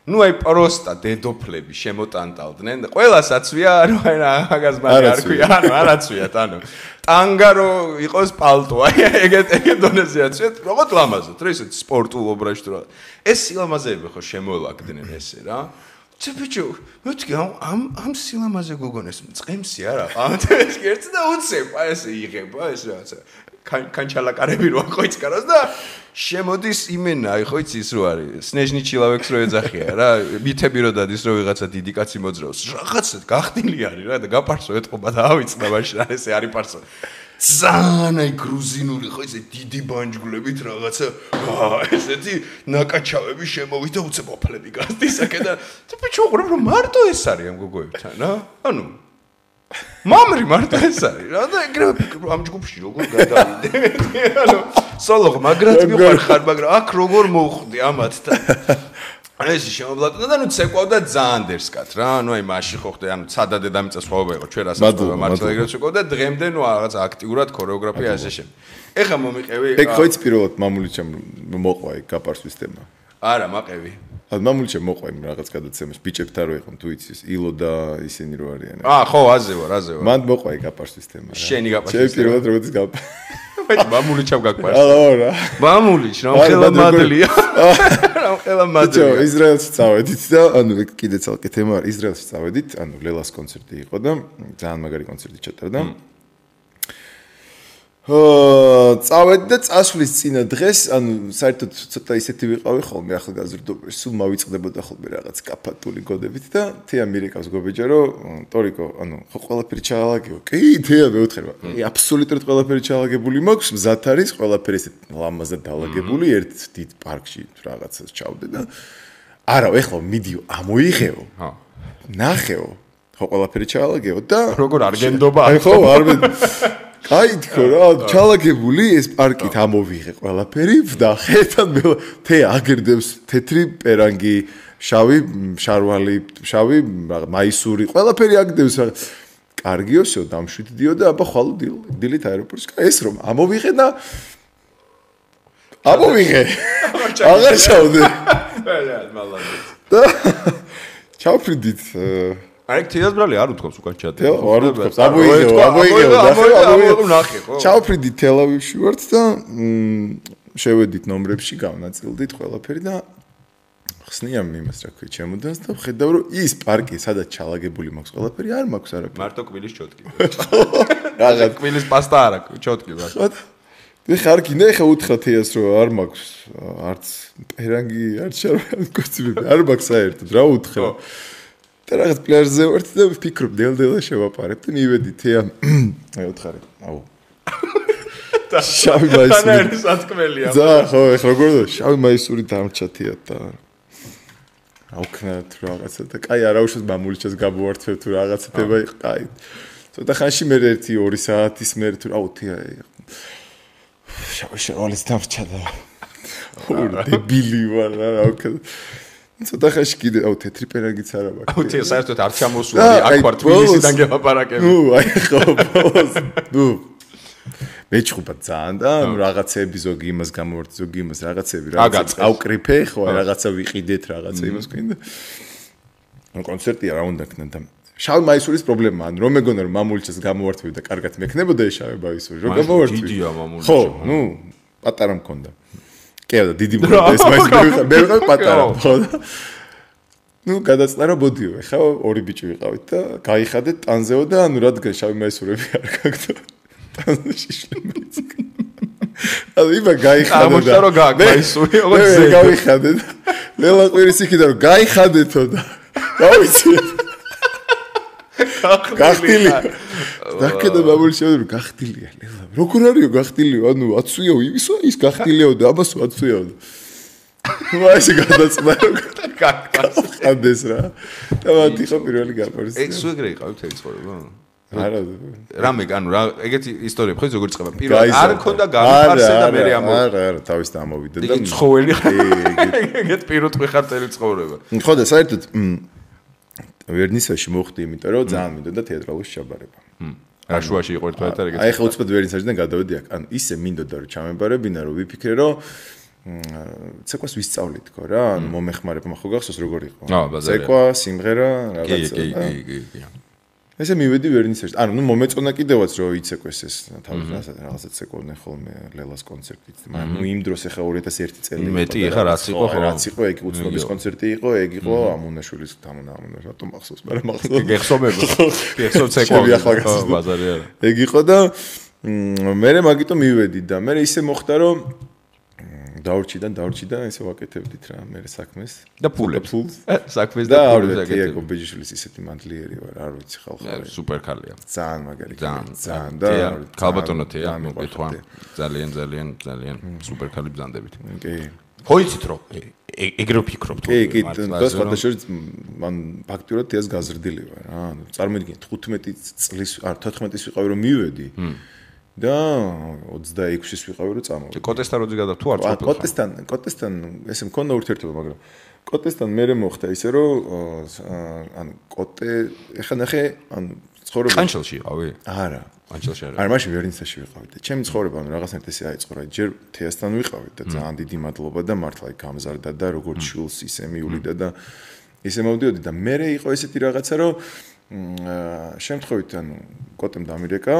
ანუ აი პროსტა დედოფლები შემოტანტალდნენ და ყველას აცვია ანუ აი მაგას მაგ არ ქვია ანუ არ აცვიათ ანუ ტანგარო იყოს პალტო აი ეგეთ დონეზე აცვიათ როგორც ლამაზად რა ისეთ სპორტულ ობრაშში რა ეს სილამაზეები ხო შემოვლაგდნენ ესე რა ბიჭო მეთქი ამ სილამაზე გოგონეს მწყემსი არა ამათეს ერთს და უცებ აი ესე იღება ეს რაღაცა კანჩალაკარები რო ხოიცკაროს და შემოდის იმენა აი ხო იცი ის რო არის სნეჟნი ჩილავექს რო ეძახია რა მითები რო დადის რო ვიღაცა დიდი კაცი მოძრაობს რაღაცა გახდილი არის რა და გაპარსო ეთყობა და ავიწყდა მაშინ ესე არის პარსო ძალიან აი გრუზინული ხო იცი დიდი ბანჯგვლებით რაღაცა ესეთი ნაკაჩავები შემოვიდა უცებ ოფლები გასდის აქედან და ბიჭო უყურებ რომ მარტო ეს არის ამ გოგოებთან რა ანუ მამრი მარტო ეს არის რა და ეგრევე ამ ჯგუფში როგორ გადავიდე ანუ სოლო მაგრად მიყარხარ მაგრამ აქ როგორ მოვხვდი ამათთან ეს შემოვლატა და ნუ ცეკვავდა ძალიან დერსკად რა ანუ აი მაშინ ხო ხდე ანუ ცადა დედამიწა სხვაობა იყო ჩვენ რასაც მართლა ეგრეთ შეკვავდა დღემდე ნუ რაღაც აქტიურად ქორეოგრაფია ასე შემდეგ ეხა მომიყევი ეგ ხო იცი პირველად მამულიჩემ მოყვა ეგ გაპარსვის თემა არა მაყევი მამულიჩემ მოყვა იმ რაღაც გადაცემაში ბიჭებთან რო იყო თუ იცი ილო და ისინი რო არიან ხო აზე ვარ მან მოყვა ეგ გაპარსვის თემა რა შენი გაპარსვის თემა პირველად როგორც მე მამულიჩემ გაგპარს არა მამულიჩ რა ხელა მადლია რა ხელა მადლია ისრაელში წავედით და ანუ კიდე ცალკე თემა არის ისრაელში წავედით ანუ ლელას კონცერტი იყო და ძალიან მაგარი კონცერტი ჩატარდა წავედი და წასვლის წინა დღეს ანუ საერთოდ ცოტა ისეთი ვიყავი ხოლმე ახალგაზრდობაში სულ მავიწყდებოდა ხოლმე რაღაც კაფათული გოდებით და თეა მირეკავს გობეჯა რომ ტორიკო ანუ ხო ყველაფერი ჩაალაგეო კი თეა მეუთხება აბსოლუტურად ყველაფერი ჩაალაგებული მაქვს მზად არის ყველაფერი ესეთ ლამაზად დაალაგებული ერთ დიდ პარკში რაღაცას ჩავდე და არა ეხლა მიდიო ამოიღეო ნახეო ხო ყველაფერი ჩაალაგეო და როგორ არ გენდობა ხო არ აი თქო რა ჩალაგებული ეს პარკით ამოვიღე ყველაფერი ვდახე და თე აგერდებს თეთრი პერანგი შავი შარვალი შავი მაისური ყველაფერი აგდებს რა კარგიოსო დამშვიდდიო და აბა ხვალ დილით აეროპორტში ეს რომ ამოვიღე და ამოვიღე აღარ ჩავდე და ჩავფრიდით აი თეას ბრალი არ უთქვამს უკან ჩადე. არ უთქვამს. ამოიღეო ნახე ხო. ჩავფრიდი თელავივში ვართ და შევედით ნომრებში გავნაწილდით ყველაფერი და ხსნიამ იმას რა ქვია ჩემოდანს და ხედავ რომ ის პარკი სადაც ჩალაგებული მაქვს ყველაფერი არ მაქვს არაფერი. მარტო კვილის ჩოტკი. რაღაც კვილის პასტა არა ჩოტკი რა. მე ხარ კიდე ხა უთხრა თეას რომ არ მაქვს არც პერანგი არც შარვალი კოსტიუმი არ მაქვს საერთოდ რა უთხრა. და რაღაც პლაჟზე ვართ და ვფიქრობ დელდელა შევაპარებ და მივედი თეა აი უთხარი აუ შავი მაისური და არის ათქმელია ზა ხო ეხლა როგორ შავი მაისური დამრჩა თეა და აუქნათ რაღაცა და კაი არაუშავს მამულიჩას გაბუართებ თუ რაღაცა თება იყო კაი ცოტა ხანში მე 1-2 საათის მე თუ აუ თეა შავი შარვალის დამრჩა და დებილი ვარ რა ვქნა ცოტა ხანში კიდე აუ თეთრი პერანგიც არა მაქვს. აუ თეა საერთოდ არ ჩამოსული აქ ვარ თბილისიდან გელაპარაკები. ხო ხო. მეჩხუბა ძალიან და რაღაცები ზოგი იმას გამოვარდი ზოგი იმას რაღაცები რაღაცა ავკრიფე ხო რაღაცა ვიყიდეთ რაღაცა იმას გვინდა. ანუ კონცერტია რა უნდა ქნა და შავი მაისურის პრობლემაა რომ მეგონა რომ მამულიჩას გამოვართვი და კარგად მექნებოდა ეს შავი მაისური რომ გამოვართვი. დიდია მამულიჩა. ხო, ნუ პატარა მქონდა. კეა დიდი მქონდა ეს მაისური მე ვიყავ პატარა ხო და ნუ გადაწნა რომ ბოდიო ეხა ორი ბიჭი ვიყავით და გაიხადეთ ტანზეო და ანუ რადგან შავი მაისურები არ გაქვს ტანზე შიშლემიც ანუ იბა გაიხადე და ამოშტა რომ გააგვაისური ოღონდ მე გავიხადე და ლელა ყვირის იქიდან რომ გაიხადეთო და გავიცი გახტილი დაკედა მამული შევდრო გახტილია ლელა როგორ არისო გახტილიო ანუ აცვიო ისო ის გახტილიო და ამასო აცვიო ნუ აი ეს გადაწნა რომ გახდეს რა და მათი ხო პირველი გაპარს ეგ სულ ეგრე იყავით ეს ცხოვრება არა რამე ანუ რა ეგეთი ისტორია ხო როგორ წება პირველ არ მქონდა გამიფარსე და მე არა თავის და ამოვიდა და ცხოველი ეგეთ პირუტყვი ხარ წელი ცხოვრება ხო და საერთოდ ვერნისაჟში მოხდი იმიტომ რომ ძალიან მინდოდა თეატრალური ჩაბარება რა შუაში იყო ერთად ეგეთი აი ხო უცბად ვერნისაჟიდან გადავედი აქ ანუ ისე მინდოდა რომ ჩამებარებინა რომ ვიფიქრე რომ ცეკვას ვისწავლი თქო რა ანუ მომეხმარება ხო გახსოვს როგორ იყო ცეკვა სიმღერა რაღაცა კი ესე მივედი ვერნისაჟში ანუ ნუ მომეწონა კიდევაც რომ იცეკვეს ეს თავის რაღაცა ცეკვდნენ ხოლმე ლელას კონცერტით მაგრამ ნუ იმ დროს ახლა 2001 წელი მეტი ახლა რაც იყო ხო რაც იყო ეგ უცნობის კონცერტი იყო ეგ იყო ამუნაშვილის თამნა რატომ მახსოვს მაგრამ მახსოვს გეხსომება გეხსოვ ცეკვა ბაზარი არა ეგ იყო და მე მაგიტომ მივედი და მე ისე მოხდა რომ დაურჩი და ესე ვაკეთებდით რა მე საქმეს და ფულებს საქმეს და ფულებს აკეთებდით ეგ ბეჯიშვილის ისეთი მანდლიერი ვარ არ ვიცი ხალხი სუპერ ქალია ძალიან მაგარი ძალიან და ქალბატონო თეა მოგეთვან ძალიან სუპერ ქალი ბზანდებით კი ხო იცით რომ ეგრე ვფიქრობ თუ კი, და სხვადასხვა მან ფაქტურად ეს გაზრდილი ვარ რა. ანუ წარმოიდგინე 15 წლის, არ 14 ვიყავი რომ მივედი. და 26-ის ვიყავი რომ წამოვედი. კოტესთან როდი გადა თუ არ წავედი? კოტესთან ესე მქონდა ურთიერთობა, მაგრამ კოტესთან მერე მოხდა ისე რომ ანუ კოტე ეხლა ნახე ანუ ცხოვრება ყანჩელში ვიყავი? არა. ყანჩელში არა. არა, მაშინ ვერნიცაში ვიყავი და ჩემი ცხოვრება ანუ რაღაცნაირად ესე აიწყო რა. ჯერ თეასთან ვიყავი და ძალიან დიდი მადლობა და მართლა იქ გამზარდა და როგორც შულს ისე მიულიდა და ისე მოვდიოდი და მერე იყო ესეთი რაღაცა რომ შემთხვევით ანუ კოტემ დამირეკა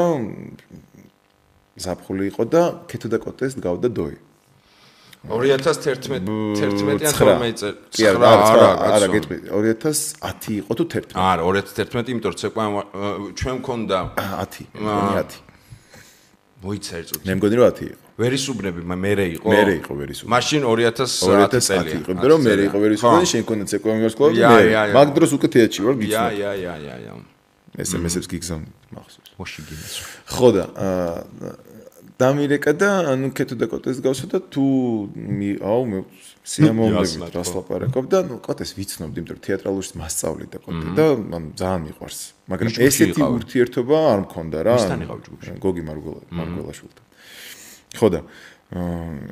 ზაფხული იყო და ქეთო და კოტეს დგავდა დოი. 2011-11-იან 12 წელი. კი არა, გეტყვი. 2010 იყო თუ 11? არა, 2011, იმიტომ რომ ცეკვა ჩვენ მქონდა 10. მგონი 10. მოიცა ერთ წუთი. მე მგონი რომ 10 იყო. ვერისუბნები მერე იყო? მერე იყო ვერისუბნები. მაშინ 2010 წელია. იყო, იმიტომ რომ მერე იყო ვერისუბნები, შენ მქონდა ცეკვა მიმარსკვლავი და მე. მაგ დროს უკვე თეატრში ვარ გიცნობ. ია. SMS-ებს გიგზავნი მახსოვს. მოში გინეს. ხო და დამირეკა და ანუ ქეთო და კოტეს გავსო და თუ აუ მე სიამოვნებით რას ლაპარაკობ და ნუ კოტეს ვიცნობდი, იმიტომ რომ თეატრალურში მასწავლი და კოტე და მან ძალიან მიყვარს. მაგრამ ესეთი ურთიერთობა არ მქონდა რა. ვისთან იყავ ჯგუფში? გოგი მარგველაშვილთან. ხო და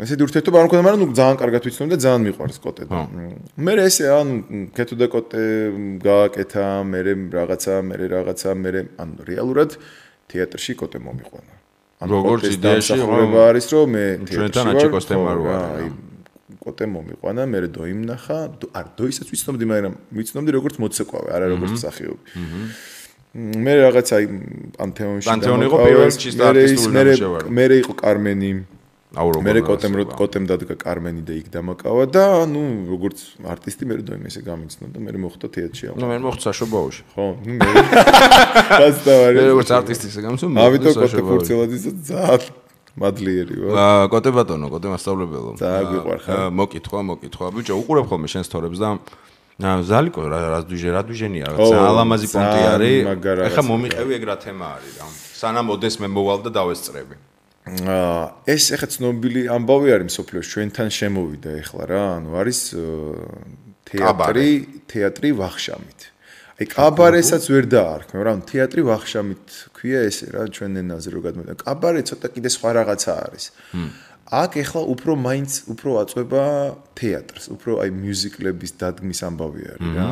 ესეთი ურთიერთობა არ მქონდა, მაგრამ ნუ ძალიან კარგად ვიცნობდი და ძალიან მიყვარს კოტე და მე ესე ანუ ქეთო და კოტე გააკეთა, მე რაღაცა ანუ რეალურად თეატრში კოტე მომიყვანა. როგორც იდეაში არის რომ მე ჩვენთან აჩიკოს თემა რო არის. კოტე მომიყვანა, მე დოიმ ნახა, არ დოისაც ვიცნობდი, მაგრამ ვიცნობდი როგორც მოცეკვავე, არა როგორც მსახიობი. მე რაღაცა აი პანთეონში იყო პირველ ჩისტა არტისტული ნამუშევარი. მე იყო კარმენი. მე კოტემ დადგა კარმენი და იქ დამაკავა და ნუ როგორც არტისტი მე დოიმ ესე გამიცნო და მე მოხდა თეატრში. ნუ მე მოხდა საშობაოში. ხო, ნუ მე გასტავარი. მე როგორც არტისტი ესე გამიცნო. ამიტომ კოტე ფურცელაძის ძალიან მადლიერი ვარ. კოტე ბატონო, კოტე მასწავლებელო. ძალიან გვიყვარ ხარ. მოკითხვა. ბიჭო, უყურებ ხოლმე შენ სტორებს და ზალიკო რა დუჟენია, ძალიან ლამაზი პონტი არის. ეხლა მომიყევი ეგ რა თემა არის რა. სანამ ოდეს მე მოვალ და დავესწრები. ეს ეხა ცნობილი ამბავი არის მსოფლიოში, ჩვენთან შემოვიდა ეხლა რა, ანუ არის თეატრი ვახშამით. აი კაბარესაც ვერ დაარქმევ, რა, თეატრი ვახშამით ქვია ესე რა, ჩვენ ენაზე რო გადმოდა. კაბარე ცოტა კიდე სხვა რაღაცა არის. აქ ეხლა უფრო აწובה თეატრს, უფრო აი მიუზიკლების დადგმის ამბავი არის რა.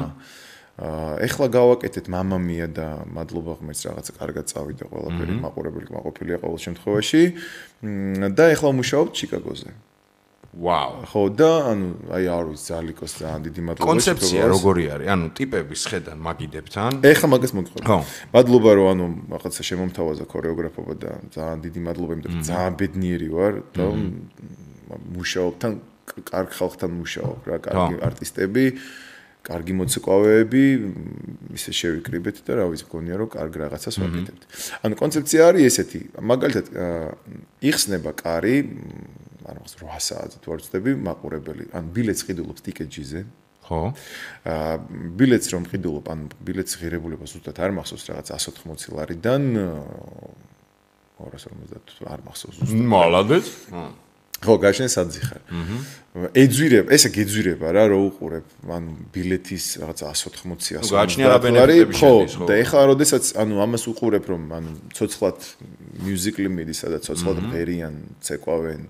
ეხლა გავაკეთეთ მამამია და მადლობა ღმერთს რაღაცა კარგად წავიდა ყველაფერი, მაყურებელი მაყოფილია ყოველ შემთხვევაში და ეხლა ვმუშაობ ჩიკაგოზე. ვაუ. ხო და ანუ აი არ ვიცი ზალიკოს ძალიან დიდი მადლობა. კონცეფცია როგორი არის? ანუ ტიპების ხედან მაგიდებთან? ეხლა მაგას მოგიყვება. ხო. მადლობა რომ ანუ რაღაცა შემომთავაზა ქორეოგრაფობა და ძალიან დიდი მადლობა, იმიტომ რომ ძალიან ბედნიერი ვარ და მუშაობ თან კარგ ხალხთან მუშაობ რა, კარგი არტისტები. კარგი მოცეკვავეები, ისე შევიკრიბეთ და რა ვიცი, მგონია რომ კარგ რაღაცას ვაკეთებთ. ანუ კონცეფცია არის ესეთი, მაგალითად, იხსნება კარი, ანუ 8 საათზე თუ არ ვცდები, მაყურებელი, ანუ ბილეთს ყიდულობს ტიკეტჯიზე. ხო. ბილეთს რომ ყიდულობ, ანუ ბილეთის ღირებულება ზუსტად არ მახსოვს რაღაც 180 ლარიდან 250 არ მახსოვს ზუსტად. მალადეც. ხო, გაშენ საძიხარ. ეძვირება, ესე გეძვირება რა, რო უყურებ, ანუ ბილეთის რაღაცა 180-100. გააჩნია რა ბენეფიტები შედის, ხო. და ეხლა როდესაც, ანუ ამას უყურებ, რომ ანუ ცოცხლად მიუზიკლი მიდის, სადაც ცოცხლად ღერიან, ცეკვავენ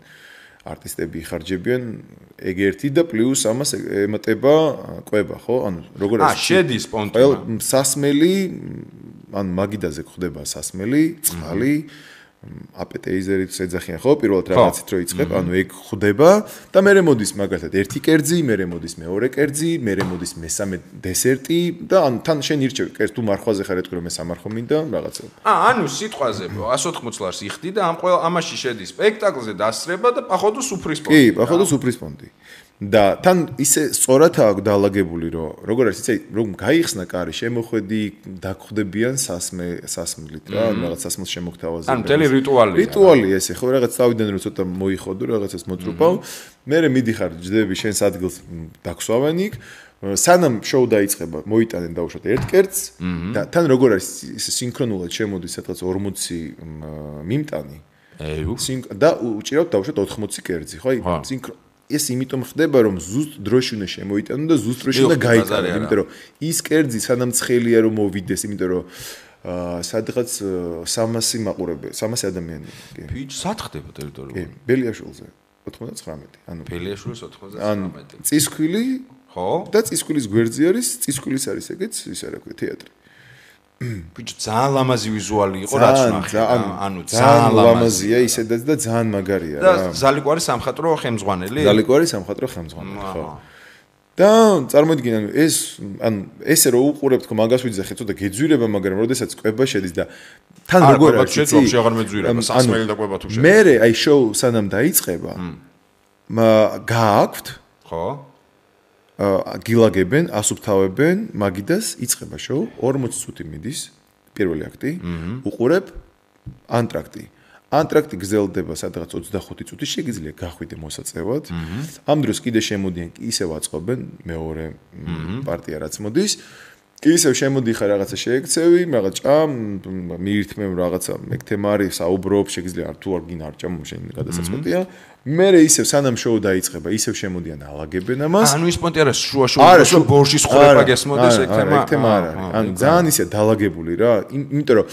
არტისტები იხარჯებიან, ეგ ერთი და პლუს ამას ემატება კვება, ხო? ანუ როგორ არის? შედის პონტი. სასმელი, ანუ მაგიდაზე ხდება სასმელი, წყალი აპეტეიზერით ეძახიან ხო პირველად რაღაცით რო იწყებ ანუ ეგ ხდება და მე მოდის მაგალითად ერთი კერძი მე მოდის მეორე კერძი მე მოდის მესამე დესერტი და ანუ თან შენ ირჩევი კერძ თუ მარხვაზე ხარ ეთქვი რომ მე სამარხო მინდა რაღაცა ანუ სიტყვაზე 180 ლარს იხდი და ამაში შედის სპექტაკლზე დასწრება და პაходу სუფრის პონტი კი პაходу სუფრის პონტი და თან ისე სწორადაა დაალაგებული რომ როგორ არის იცი რომ გაიხსნა კარი შემოხვედი დაგხვდებიან სასმლით რა რაღაც სასმელს შემოგთავაზებენ ან მთელი რიტუალი ესე ხო რაღაც თავიდან რომ ცოტა მოიხოდო რაღაცას მოწრუპავ მე მიდიხარ ჯდები შენს ადგილს დაქსვავენ იქ სანამ შოუ დაიწყება მოიტანენ დაუშვათ ერთ კერძს და თან როგორ არის ისე სინქრონულად შემოდის სადღაც 40 მიმტანი და უჭირავთ დაუშვათ 80 კერძი ხო აი ეს იმიტომ ხდება რომ ზუსტ დროში უნდა შემოიტანო და ზუსტ დროში უნდა გაიტანო, იმიტომ რომ ის კერძი სანამ ცხელია რომ მოვიდეს, იმიტომ რომ სადღაც 300 მაყურებელი, 300 ადამიანი. ფიჩ სად ხდება ტერიტორიული? ბელიაშვილზე 99. ანუ ბელიაშვილის 99. ან წისქვილი, ხო? და წისქვილის გვერდზე არის, წისქვილის არის ეგეც, ისა რა ქვია, თეატრი. ბიჭო, ძალიან ლამაზი ვიზუალი იყო, რაც ვნახე. ანუ ძალიან ლამაზია ისედაც და ძალიან მაგარია რა. და ზალიკვარი სამხატვრო ხელმძღვანელი? ზალიკვარი სამხატვრო ხელმძღვანელი, ხო. და წარმოიდგინე, ანუ ესე რომ უყურებთ, ხო, მაგას ვიძახეთ, ცოტა გეძვირება, მაგრამ როდესაც კვება შედის და თან როგორ არის, შეძვაფში აღარ მეძვირება, სასმელი და კვება თუ შედის. მე აი შოუ სანამ დაიწყება, გააქვთ, ხო? გილაგებენ, ასუფთავებენ, მაგიდას იწყება შოუ, 40 წუთი მიდის, პირველი აქტი, უყურებ ანტრაქტი. ანტრაქტი გრძელდება სადღაც 25 წუთი, შეგიძლია გახვიდე მოსაწევად. ამ დროს კიდე შემოდიან, ისევ აწყობენ მეორე პარტია რაც მოდის. ისევ შემოდიხარ რაღაცა შეექცევი, რაღაც ჭამ, მიირთმევ რაღაცა, ეგ თემა არის, საუბრობ, შეგიძლია თუ არ გინარ ჭამ, შენ გადასაწყვეტია. მე ისევ სანამ შოუ დაიწყება, ისევ შემოდიან ალაგებენ ამას. ანუ ის პონტი არის შუა ბორშის ხრება გესმოდეს ეგ თემა. ეგ თემა არ არის. ანუ ძალიან ისე დალაგებული რა, იმიტომ რომ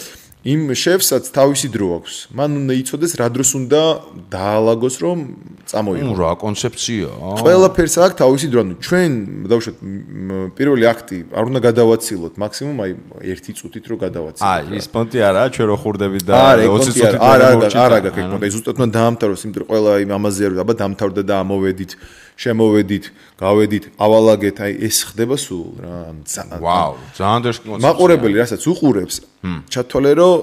იმ შეფსაც თავისი დრო აქვს. მან უნდა იცოდეს რა დროს უნდა დაალაგოს რომ წამოიღო. რა კონცეფცია. ყველაფერს აქვს თავისი დრო. ანუ ჩვენ დავუშვათ პირველი აქტი არ უნდა გადავაცილოთ, მაქსიმუმ აი 1 წუთით რო გადავაცილოთ. აი ის პონტი არაა, ჩვენ რო ხურდებით და 20 წუთით არა გაკეთე. ზუსტად უნდა დაამთავროს, იმიტომ რომ ყველა იმ ამაზე არის, აბა დამთავრდა და ამოვედით, შემოვედით, გავედით, ავალაგეთ, აი ეს ხდება სულ რა. ვაუ, ძალიან დაშ კონცეფცია. მაყურებელი რასაც უყურებს, ჩათვალე რომ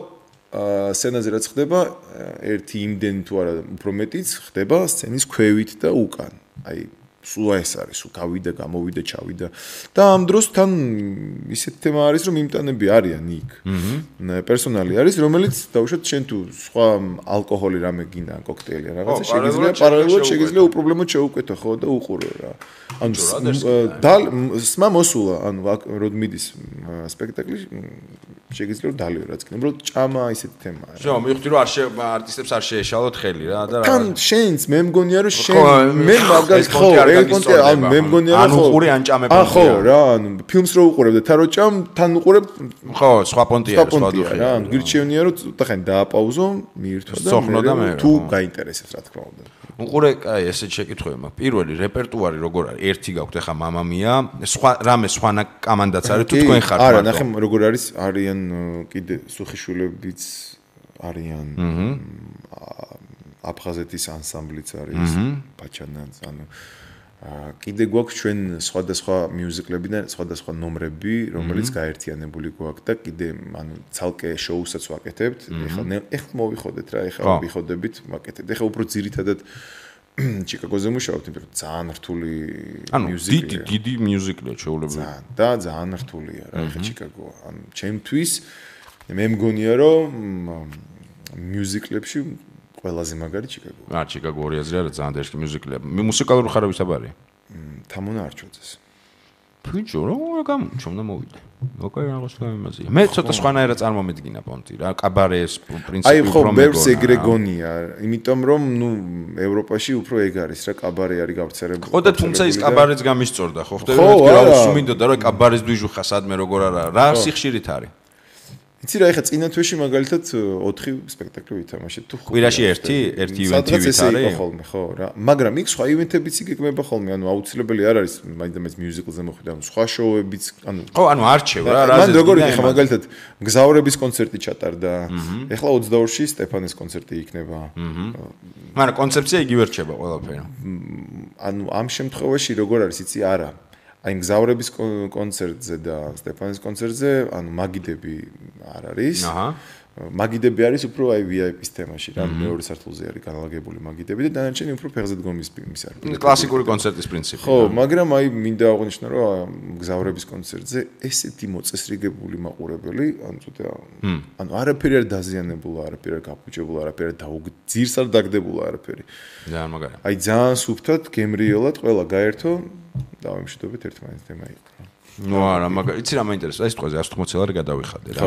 სცენაზე რაც ხდება, ერთი იმდენი თუ არა უფრო მეტიც ხდება სცენის ქვევით და უკან. აი სულ ეს არის, სულ გავიდა, გამოვიდა, ჩავიდა. და ამ დროს თან ისეთ თემა არის, რომ იმტანები არიან იქ. პერსონალი არის, რომელიც დავუშვათ შენ თუ სხვა ალკოჰოლი რამე გინდა, კოქტეილი რაღაცა შეგიძლია პარალელურად შეგიძლია უპრობლემოდ შეუკვეთო ხო და უყურო რა. ანუ სმა მოსულა, ანუ როდ მიდის სპექტაკლი შეგიძლია რომ დალიო რაც კიდე, უბრალოდ ჭამა ისეთი თემაა. შო, მივხვდი რომ არტისტებს არ შეეშალოთ ხელი რა და რა. თან შენს მე მგონია რომ შენ მე მაგას ხო ანუ მე მგონია რომ ანუ უყური ან ჭამე პონტია. ხო რა, ანუ ფილმს რო უყურებ და თან რო ჭამ, თან უყურებ ხო, სხვა პონტია, სხვა დუხი. რა, ანუ გირჩევნია რომ ცოტა ხანი დააპაუზო, მიირთვა და თუ გაინტერესებს რა თქმა უნდა. უყურე, აი ესეთ შეკითხვები მაქვს. პირველი რეპერტუარი როგორ არის? ერთი გაქვთ ახლა მამამია, სხვა რამე სხვანა კამანდაც არის თუ თქვენ ხართ? არა, ნახე როგორ არის, არიან კიდე სუხიშვილებიც არიან. აფხაზეთის ანსამბლიც არის, პაჩანაც, ანუ კიდე გვაქვს ჩვენ სხვადასხვა მიუზიკლებიდან სხვადასხვა ნომრები, რომელიც გაერთიანებული გვაქვს და კიდე ანუ ცალკე შოუსაც ვაკეთებთ. ეხლა მოვიხოდეთ რა, ეხლა ვიხოდებით, ვაკეთებთ. ეხლა უფრო ძირითადად ჩიკაგოზე მუშაობთ, იმიტომ რომ ძალიან რთული მიუზიკია. დიდი მიუზიკია შეუძლებელი. და ძალიან რთულია რა, ეხლა ჩიკაგო. ანუ ჩემთვის მე მგონია რომ მიუზიკლებში ყველაზე მაგარი ჩიკაგო. ჩიკაგო 2000 არა ძალიან დაშკი მიუზიკლია. მუსიკალური ხარავისაბარია. თამონა არჩოძეს. ფიჯო რა გამომჩნდა მოვიდა. ოკეი რაღაც გამიმაზია. მე ცოტა სხვანაირად წარმომედგინა პონტი რა, კაბარეს პრინციპი უფრო მეგონა. აი ხო, ბევრს ეგრე გონია, იმიტომ რომ ნუ ევროპაში უფრო ეგ არის რა, კაბარე არის გავრცელებული. ხო და თუმცა ის კაბარეც გამისწორდა, ხო ხდება მეთქი რა უსმინდოდა რა კაბარეს დვიჟუხა სადმე როგორ არა, რა სიხშირით არის. იცი რა, ეხლა წინა თვეში მაგალითად 4 სპექტაკლი ვითამაშეთ თუ კვირაში ერთი ივენთი ვითარი ხოლმე ხო რა, მაგრამ იქ სხვა ივენთებიც იგეგმება ხოლმე, ანუ აუცილებელი არ არის მაინც მიუზიკლზე მოხვიდა, ანუ სხვა შოუებიც, ანუ ხო, ანუ არჩევ რა, რა მან როგორ ეხლა მაგალითად გზავრების კონცერტი ჩატარდა, ეხლა 22-ში სტეფანეს კონცერტი იქნება. მაგრამ კონცეფცია იგივე რჩება ყველაფერი. ანუ ამ შემთხვევაში როგორ არის, იცი არა აი გზავრების კონცერტზე და სტეფანის კონცერტზე, ანუ მაგიდები არ არის. მაგიდები არის უფრო აი VIP-ის თემაში, რა მეორე სართულზე არის განლაგებული მაგიდები და დანარჩენი უფრო ფეხზე დგომის ფილმის არის. კლასიკური კონცერტის პრინციპი. ხო, მაგრამ აი მინდა აღვნიშნო, რომ გზავრების კონცერტზე ესეთი მოწესრიგებული მაყურებელი, ანუ ცოტა ანუ არაფერი არ დაზიანებულა, არაფერი არ გაფუჭებულა, არაფერი ძირს არ დაგდებულა, არაფერი. ძალიან მაგარია. აი ძალიან სუფთად, გემრიელად ყველა გაერთო დავემშვიდობეთ ერთმანეთს თემა იყო. ნუ არა, მაგრამ იცი რა მაინტერესებს, ეს თქოზე 180 ლარი გადავიხადე რა.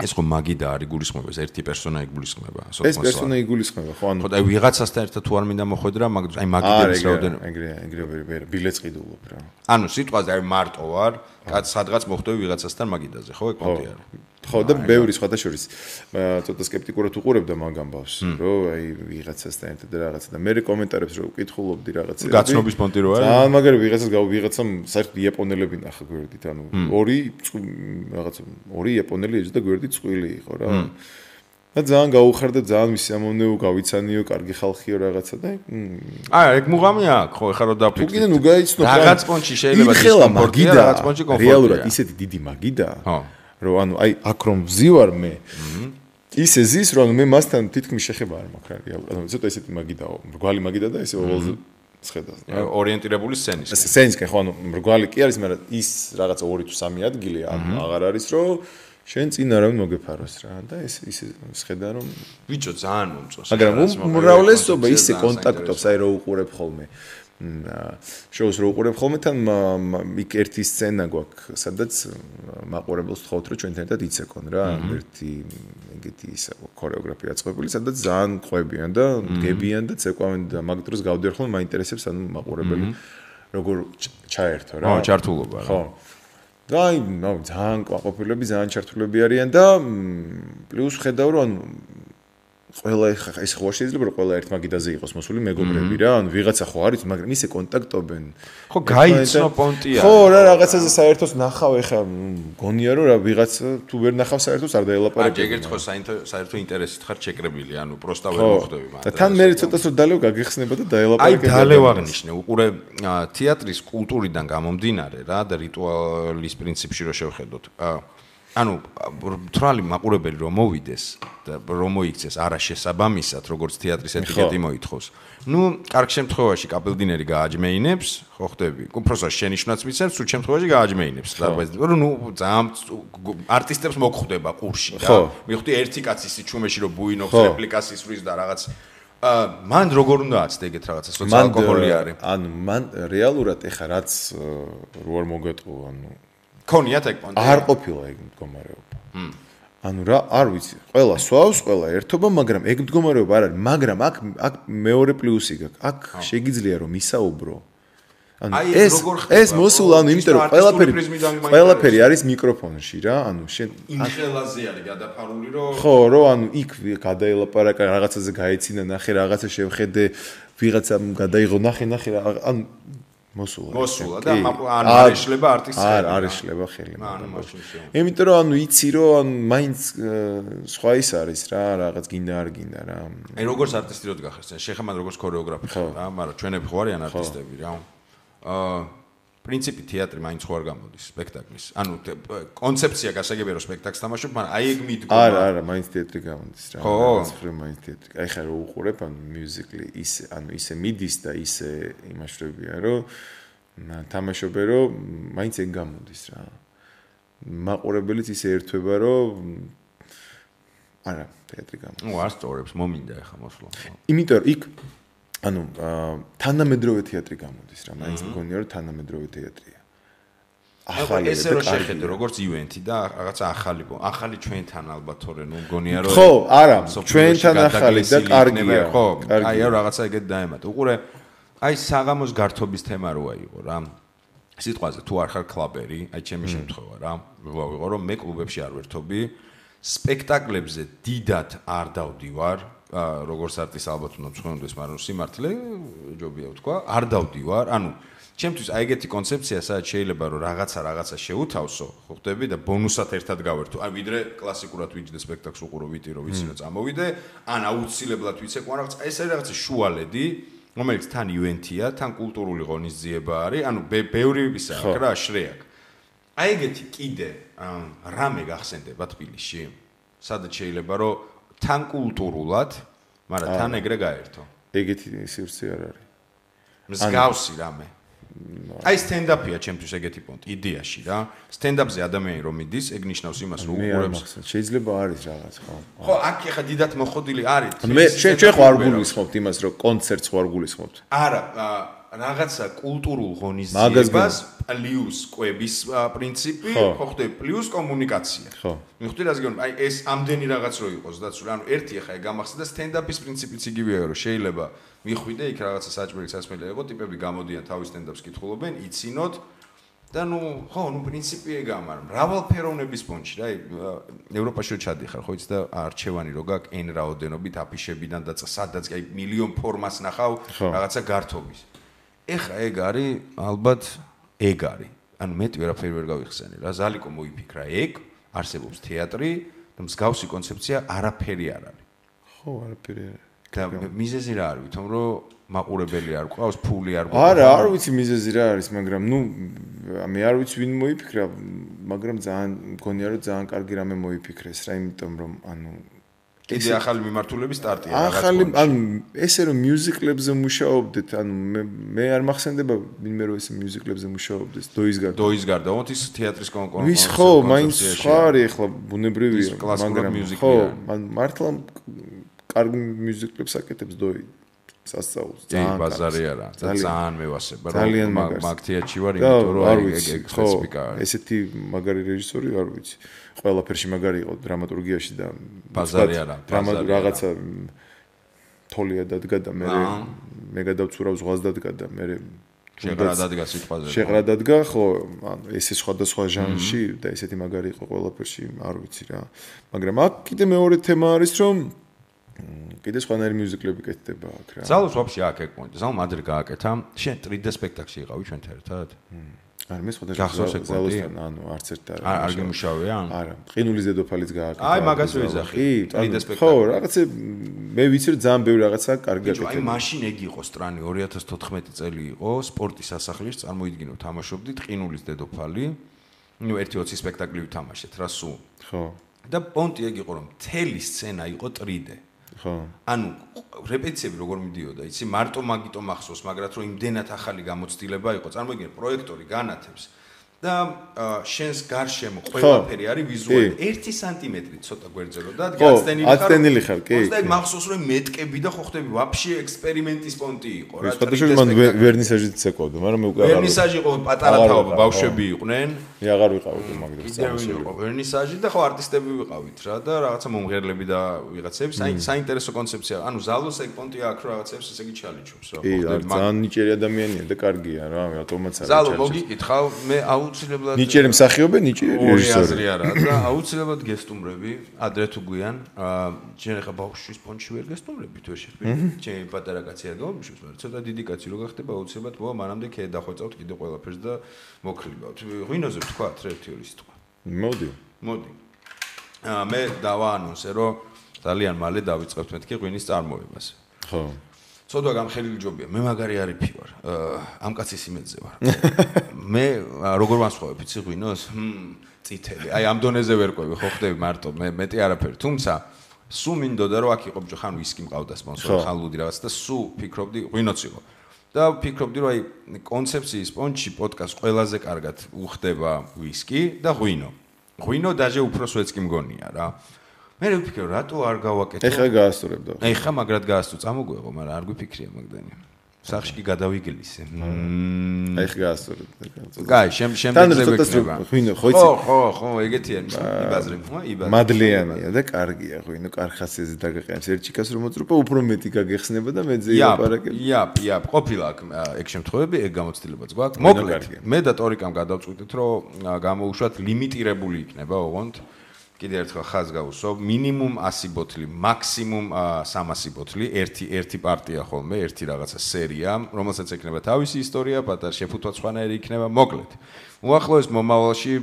ეს ხო მაგიდა არის გულისხმობა, ეს ერთი პერსონა იგულისხმება, ეს პერსონა იგულისხმება, ხო, ანუ აი ვიღაცასთან ერთად თუ არ მინდა მოხვედრა, აი მაგიდების რაოდენობა. ეგრე ბილეთს ყიდულობ რა. ანუ სიტყვაზე აი მარტო ვარ, სადღაც მოხვდები ვიღაცასთან მაგიდაზე, ხო, ეგ პონტი არის. ხო და ბევრი სხვათა შორის ცოტა სკეპტიკურად უყურებდა მაგ ამბავს, რომ აი ვიღაცასთან ერთად რაღაცა და მე კომენტარებს რო ვკითხულობდი რაღაცები. გაცნობის პონტი რო არის. ძალიან მაგარი ვიღაცამ საერთოდ იაპონელები ნახა გვერდით, ანუ ორი იაპონელი ეძდა გვერდით წვილი იყო რა. და ძალიან გაუხარდა, ძალიან მისამოვნეო, გავიცანიო, კარგი ხალხიო რაღაცა და ეგ მუღამი აქვს, ხო, ეხლა რო დაფიქრდი. თუ კიდე ნუ გაიცნო რაღაც პონჩი შეიძლება დისკომფორტია, რაღაც პონჩი კომფორტია. რეალურად ისეთი დიდი მაგიდაა. ხო. რომ ანუ აი აქ რომ ვზივარ მე ისე ზის რომ მე მასთან თითქმის შეხება არ მაქვს რეალურად ანუ ცოტა ისეთი მაგიდაო მრგვალი მაგიდა და ესე ოვალზე შეხედავს ორიენტირებული სცენის სცენისკენ ხო ანუ მრგვალი კი არის მაგრამ ის რაღაცა 2 თუ 3 ადგილი აღარ არის რომ შენ წინ არავინ მოგეფაროს რა და ეს ისე შეხედა რომ ბიჭო ძალიან მომწონს მაგრამ უმრავლესობა ისე კონტაქტობს აი რო უყურებ ხოლმე შოუს რო უყურებ ხოლმე თან იქ ერთი სცენა გვაქვს სადაც მაყურებელს ვთხოვთ რომ ჩვენთან ერთად იცეკონ რა ერთი ეგეთი ისა ქორეოგრაფია აწყობილი სადაც ძალიან ყვებიან და გებიან და ცეკვავენ და მაგ დროს გავდივარ ხოლმე მაინტერესებს ანუ მაყურებელი როგორ ჩაერთო რა ჩართულობა რა ხო და აი ძალიან ყვაყოფილები ძალიან ჩართულები არიან და პლუს ხედავ რომ ყველა ეს ხო შეიძლება რომ ყველა ერთ მაგიდაზე იყოს მოსული მეგობრები რა ანუ ვიღაცა ხო არის მაგრამ ისე კონტაქტობენ ხო გაიცნო პონტია ხო რა რაღაცაზე საერთოდ ნახავ ეხა გონია რომ რა ვიღაცა თუ ვერ ნახავ საერთოდ არ დაელაპარაკებ ეგ ერთ ხო საერთოდ ინტერესით ხარ შეკრებილი ანუ პროსტა ვერ მოხდები მაგრამ და თან მე ცოტას რომ დალევ გაგიხსნება და დაელაპარაკებ აი დალევ აღნიშნე უყურე თეატრის კულტურიდან გამომდინარე რა და რიტუალის პრინციპში რო შევხედოთ ანუ თრალი მაყურებელი რომ მოვიდეს და რომ მოიქცეს არაშესაბამისად როგორც თეატრის ეტიკეტი მოითხოვს. ნუ კარგ შემთხვევაში კაპელდინერი გააჯმეინებს, ხო ხდები? უბრალოდ შენიშვნაც მიცემს, სულ შემთხვევაში გააჯმეინებს. რომ ნუ ძალიან არტისტებს მოგხვდება ყურში და მივხვდი ერთი კაცი სიჩუმეში რომ ბუინობს რეპლიკას ისვრის და რაღაც მან როგორ უნდა აცდე ეგეთ რაღაცა სოციალკოჰოლი არის. ანუ მან რეალურად ეხა რაც რო არ მოგეტყო ანუ ქონიათ ეგ პონტი არ ყოფილა ეგ მდგომარეობა ანუ რა არ ვიცი ყველა სვავს ყველა ერთობა მაგრამ ეგ მდგომარეობა არ არის მაგრამ აქ მეორე პლუსი გაქვს აქ შეგიძლია რომ ისაუბრო ანუ ეს მოსულა ანუ იმიტომ რომ ყველაფერი არის მიკროფონში რა ანუ შენ იმ ხელაზე არის გადაფარული რომ ხო რომ ანუ იქ გადაელაპარაკა რაღაცაზე გაეცინა ნახე რაღაცა შევხედე ვიღაცამ გადაიღო ნახე ანუ მოსულა და არ ეშლება არტისტს არ ეშლება ხელი იმიტომ რომ ანუ იცი რომ ანუ მაინც სხვა ის არის რა რაღაც გინდა არ გინდა რა აი როგორც არტისტი რო დგახეს შეხემან როგორც ქორეოგრაფი ხარ რა მაგრამ ჩვენები ხო არიან არტისტები რა პრინციპი თეატრი მაინც ხო არ გამოდის სპექტაკლის ანუ კონცეფცია გასაგებია რომ სპექტაკლს თამაშობ მაგრამ აი ეგ მიდგომა არა მაინც თეატრი გამოდის რა ხო მაინც თეატრი აი ხა რო უყურებ ანუ მიუზიკლი ისე ანუ ისე მიდის და ისე იმაშრებია რომ თამაშობე რომ მაინც ეგ გამოდის რა მაყურებელიც ისე ერთვება რომ არა თეატრი გამოდის ნუ არ სწორებს მომინდა ხა მოსვლა იმიტომ რომ იქ ანუ თანამედროვე თეატრი გამოდის რა მაინც მგონია რომ თანამედროვე თეატრია ახალი ესე რომ შეხედე როგორც ივენთი და რაღაცა ახალი ჩვენთან ალბათ თორე ნუ მგონია რომ ხო არა ჩვენთან ახალი და კარგია ხო აი რაღაცა ეგეთ დაემატა უყურე აი საღამოს გართობის თემა როა იყო რა სიტყვაზე თუ არ ხარ კლაბერი აი ჩემი შემთხვევა რა ვიყო რომ მე კლუბებში არ ვერთობი სპექტაკლებზე დიდად არ დავდივარ როგორც არტისტ ალბათ უნდა მწვენდეს, მაგრამ სიმართლე ჯობია ვთქვა, არ დავდივარ. ანუ ჩემთვის აი ეგეთი კონცეფცია, სადაც შეიძლება რომ რაღაცა შეუთავსო, ხო ხდები და ბონუსად ერთად გავერთო. აი ვიდრე კლასიკურად ვიჯდე სპექტაკლს უყურო ვიტირო, ვიცი რომ წამოვიდე, ან აუცილებლად ვიცეკვა რაღაცა, ეს არის რაღაცა შუალედი, რომელიც თან ივენთია, თან კულტურული ღონისძიება არის, ანუ ბევრი ისა აქვს რა, შრეაკ. აი ეგეთი კიდე რამე გახსენდება თბილისში, სადაც შეიძლება რომ თან კულტურულად, მაგრამ თან ეგრე გაერთო. ეგეთი სივრცე არ არის. მსგავსი რამე. აი სტენდაპია ჩემთვის ეგეთი პონტი, იდეაში რა. სტენდაპზე ადამიანი რომ მიდის, ეგ ნიშნავს იმას, რომ უყურებს. შეიძლება არის რაღაც, ხო. ხო, აქ ეხა დიდად მოხდილი არის. მე ჩვენ ხო არ გულისხმობთ იმას, რომ კონცერტს ხო არ გულისხმობთ. არა, რაღაცა კულტურულ ღონისძიებას პლუს კვების პრინციპი, ხო ხდება, პლუს კომუნიკაცია. ხო. მიხვდი რას გეუბნები? აი ეს ამდენი რაღაც რო იყოს დაცული. ანუ ერთი ახლა გამახსენდა სტენდაპის პრინციპიც იგივეა, რომ შეიძლება მიხვიდე იქ რაღაცა საჭმელი სასმელი იყო, ტიპები გამოდიან თავის სტენდაპს კითხულობენ, იცინოთ და ხო, პრინციპი ეგაა, მაგრამ მრავალფეროვნების ფონში რა, ევროპაში ჩადიხარ, ხო იცი და არჩევანი რო გაქვს n რაოდენობით აფიშებიდან და სადაც აი მილიონ ფორმას ნახავ რაღაცა გართობის. ეხა ეგ არის, ალბათ ეგ არის. ანუ მეტი ვერაფერი ვერ გავიხსენე რა. ზალიკო მოიფიქრა ეგ, არსებობს თეატრი და მსგავსი კონცეფცია არაფერი არ არის. ხო, არაფერი არ არის. და მიზეზი რა არის, თუმ რომ მაყურებელი არ ყავს, ფული არ ყავს. არა, არ ვიცი მიზეზი რა არის, მაგრამ მე არ ვიცი ვინ მოიფიქრა, მაგრამ ძალიან მგონია რომ ძალიან კარგი რამე მოიფიქრეს რა, იმიტომ რომ კიდე ახალი მიმართულების სტარტია რაღაც. ახალი, ესე რომ მიუზიკლებზე მუშაობდეთ, მე არ მახსენდება ვინმე რომ ესე მიუზიკლებზე მუშაობდეს, დოის გარდა, ის თეატრის კონკურსი. ვის ხო, მაინც სხვა არის ახლა ბუნებრივია, მაგრამ ხო, მართლა კარგი მიუზიკლებს აკეთებს დოი. სასწაულს ძალიან ბაზარი არა ძალიან მევასება რომ მაგ თეატრში ვარ იმიტომ რომ ეგ სპეციფიკა ესეთი მაგარი რეჟისორი არ ვიცი ყველაფერში მაგარი იყო დრამატურგიაში და ბაზარი არა რაღაცა თოლია დადგა და მე გადავცურავ ზღვას დადგა და მე შეღრა დადგა სიტყვაზე შეღრა დადგა ხო ანუ ესე სხვადასხვა ჟანრში და ესეთი მაგარი იყო ყველაფერში არ ვიცი რა მაგრამ აქ კიდე მეორე თემა არის რომ კიდე სხვანაირი მიუზიკლები კეთდება აქ რა. ზალოს ვაფშე აქ ეკმონდა. ზალო მადრე გააკეთა. შენ 3D სპექტაკლში იყავი ჩვენთან ერთად? არა, მე სხვადასხვა ზალოსთან, არც ერთ არ გიმუშავია? არა, ყინულის დედოფალიც გააკეთა. აი, მაგას ვიზახი. 3D სპექტაკლი. ხო, რაღაცა მე ვიცი რომ ძალიან ბევრი რაღაცა კარგი აკეთებდა. აი, მაშინ ეგ იყო სტრანი 2014 წელი იყო, სპორტის სასახლის წარმოიდგინო, თამაშობდით ყინულის დედოფალი. ნუ 1-20 სპექტაკლი ვთამაშეთ რა სულ. ხო. და პონტი ეგ იყო რომ მთელი სცენა იყო 3D. ხო. ანუ რეპეტიციები როგორ მიდიოდა, იცი, მარტო მაგიტო მახსოვს, მაგრამ რომ იმდენად ახალი გამოცდილება იყო, წარმოიდგინე, პროექტორი განათებს და შენს გარშემო ყველაფერი არის ვიზუალური 1 სანტიმეტრი ცოტა გვერდზე და გაცდენილი ხარ, კი. და მახსოვს რომ მეტკები და ხო ხდები ვაფშე ექსპერიმენტის პონტი იყო რა. სხვადასხვა მან ვერნისაჟიც ეკავდა, მაგრამ მე უკვე ვერნისაჟი იყო პატარა თაობა, ბავშვები იყვნენ. მე აღარ ვიყავდი მაგდროს. კიდევ იყო ვერნისაჟი და ხო არტისტები ვიყავით რა და რაღაცა მომღერლები და ვიღაცები, საინტერესო კონცეფცია. ანუ ზალოს ეგ პონტი აქვს რაღაცებს ესე იგი ჩალიჩობს რა. ხო ხდები ძალიან ნიჭიერი ადამიანია და კარგია რა, რატომაც არის. ზალო მოგიკითხავ, მე აუცილებლად ნიჭიერი მსახიობი, ნიჭიერი რეჟისორი. არა და აუცილებლად გესტუმრები, ადრე თუ გვიან, შენ ახლა ბავშვის პონჩი ვერ გესტუმრებით ვერ შეხვდები. ჩემი პატარა კაცი არ გამომშვით, მაგრამ ცოტა დიდი კაცი რო გახდება, აუცილებლად მოვა მანამდე ქე დახვეწავთ კიდე ყველაფერს და მოკრიბავთ. ღვინოზე ვთქვათ, ერთი-ორი სიტყვა. მოდი. მე დავაანონსე, რომ ძალიან მალე დავიწყებთ მეთქი ღვინის წარმოებას. ხო. ცოტა გამხელილი ჯობია. მე მაგარი არიფი ვარ. ამ კაცის იმედზე ვარ. მე როგორ ვასხოვებ, იცი ღვინოს? წითელი. აი ამ დონეზე ვერ ყვევი, ხო ხდები მარტო, მე მეტი არაფერი. თუმცა სულ მინდოდა რომ აქ იყო ბჭო, ხან ვისკი მყავდა სპონსორი, ხან ლუდი რაღაც და სულ ფიქრობდი ღვინოც იყო. და ფიქრობდი რომ აი კონცეფციის პონჩი პოდკასტ ყველაზე კარგად უხდება ვისკი და ღვინო. ღვინო დაჟე უფრო სვეც კი მგონია რა. მე ვფიქრე რატო არ გავაკეთო? ეხლა გაასწორებდა. ეხლა მაგრად გაასწო, წამოგვეღო, მაგრამ არ გვიფიქრია მაგდანი. სახში კი გადავიგლისე. აი ხა გაასწორებდა. კაი, შემდეგზე ვეკნება. ღვინო, ხო იცი? ხო, ეგეთი არის. იბაზრებ, იბაზრებ. მადლიანია და კარგია ღვინო, კარხასიაზე დაგაყენებს ერთ ჩიკას რომ მოწრუპა, უფრო მეტი გაგეხსნება და მეძე ილაპარაკებ. იაპ, ყოფილა ეგ შემთხვევები, ეგ გამოცდილებაც გვაქვს. მოკლედ, მე და ტორიკამ გადავწყვიტეთ, რომ გამოუშვათ ლიმიტირებული იქნება, ოღონდ კიდე ერთხელ ხაზს გავუსვო, მინიმუმ 100 ბოთლი, მაქსიმუმ 300 ბოთლი, ერთი პარტია ხოლმე, ერთი რაღაცა სერია, რომელსაც ექნება თავისი ისტორია, პატარ შეფუთვა სხვანაირი იქნება, მოკლედ. უახლოეს მომავალში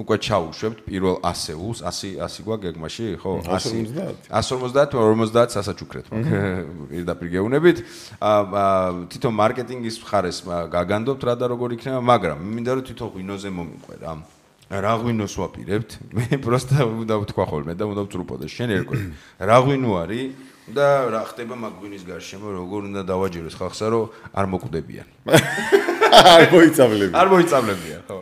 უკვე ჩაუშვებთ პირველ ასეულს, 100 გვაქვს გეგმაში, ხო? 150, 50 სასაჩუქრეთ მაგ. პირდაპირ გეუბნებით. თვითონ მარკეტინგის მხარეს გაგანდობთ რა და როგორ იქნება, მაგრამ მინდა რომ თვითონ ღვინოზე მომიყვე რა. რა ღვინოს ვაპირებთ? მე პროსტა უნდა ვთქვა ხოლმე და უნდა ვწრუპოდე. შენ ერკვე. რა ღვინო არის და რა ხდება მაგ ღვინის გარშემო, როგორ უნდა დავაჯეროს ხალხსა, რომ არ მოკვდებიან. არ მოიწამლებიან. არ მოიწამლებიან, ხო.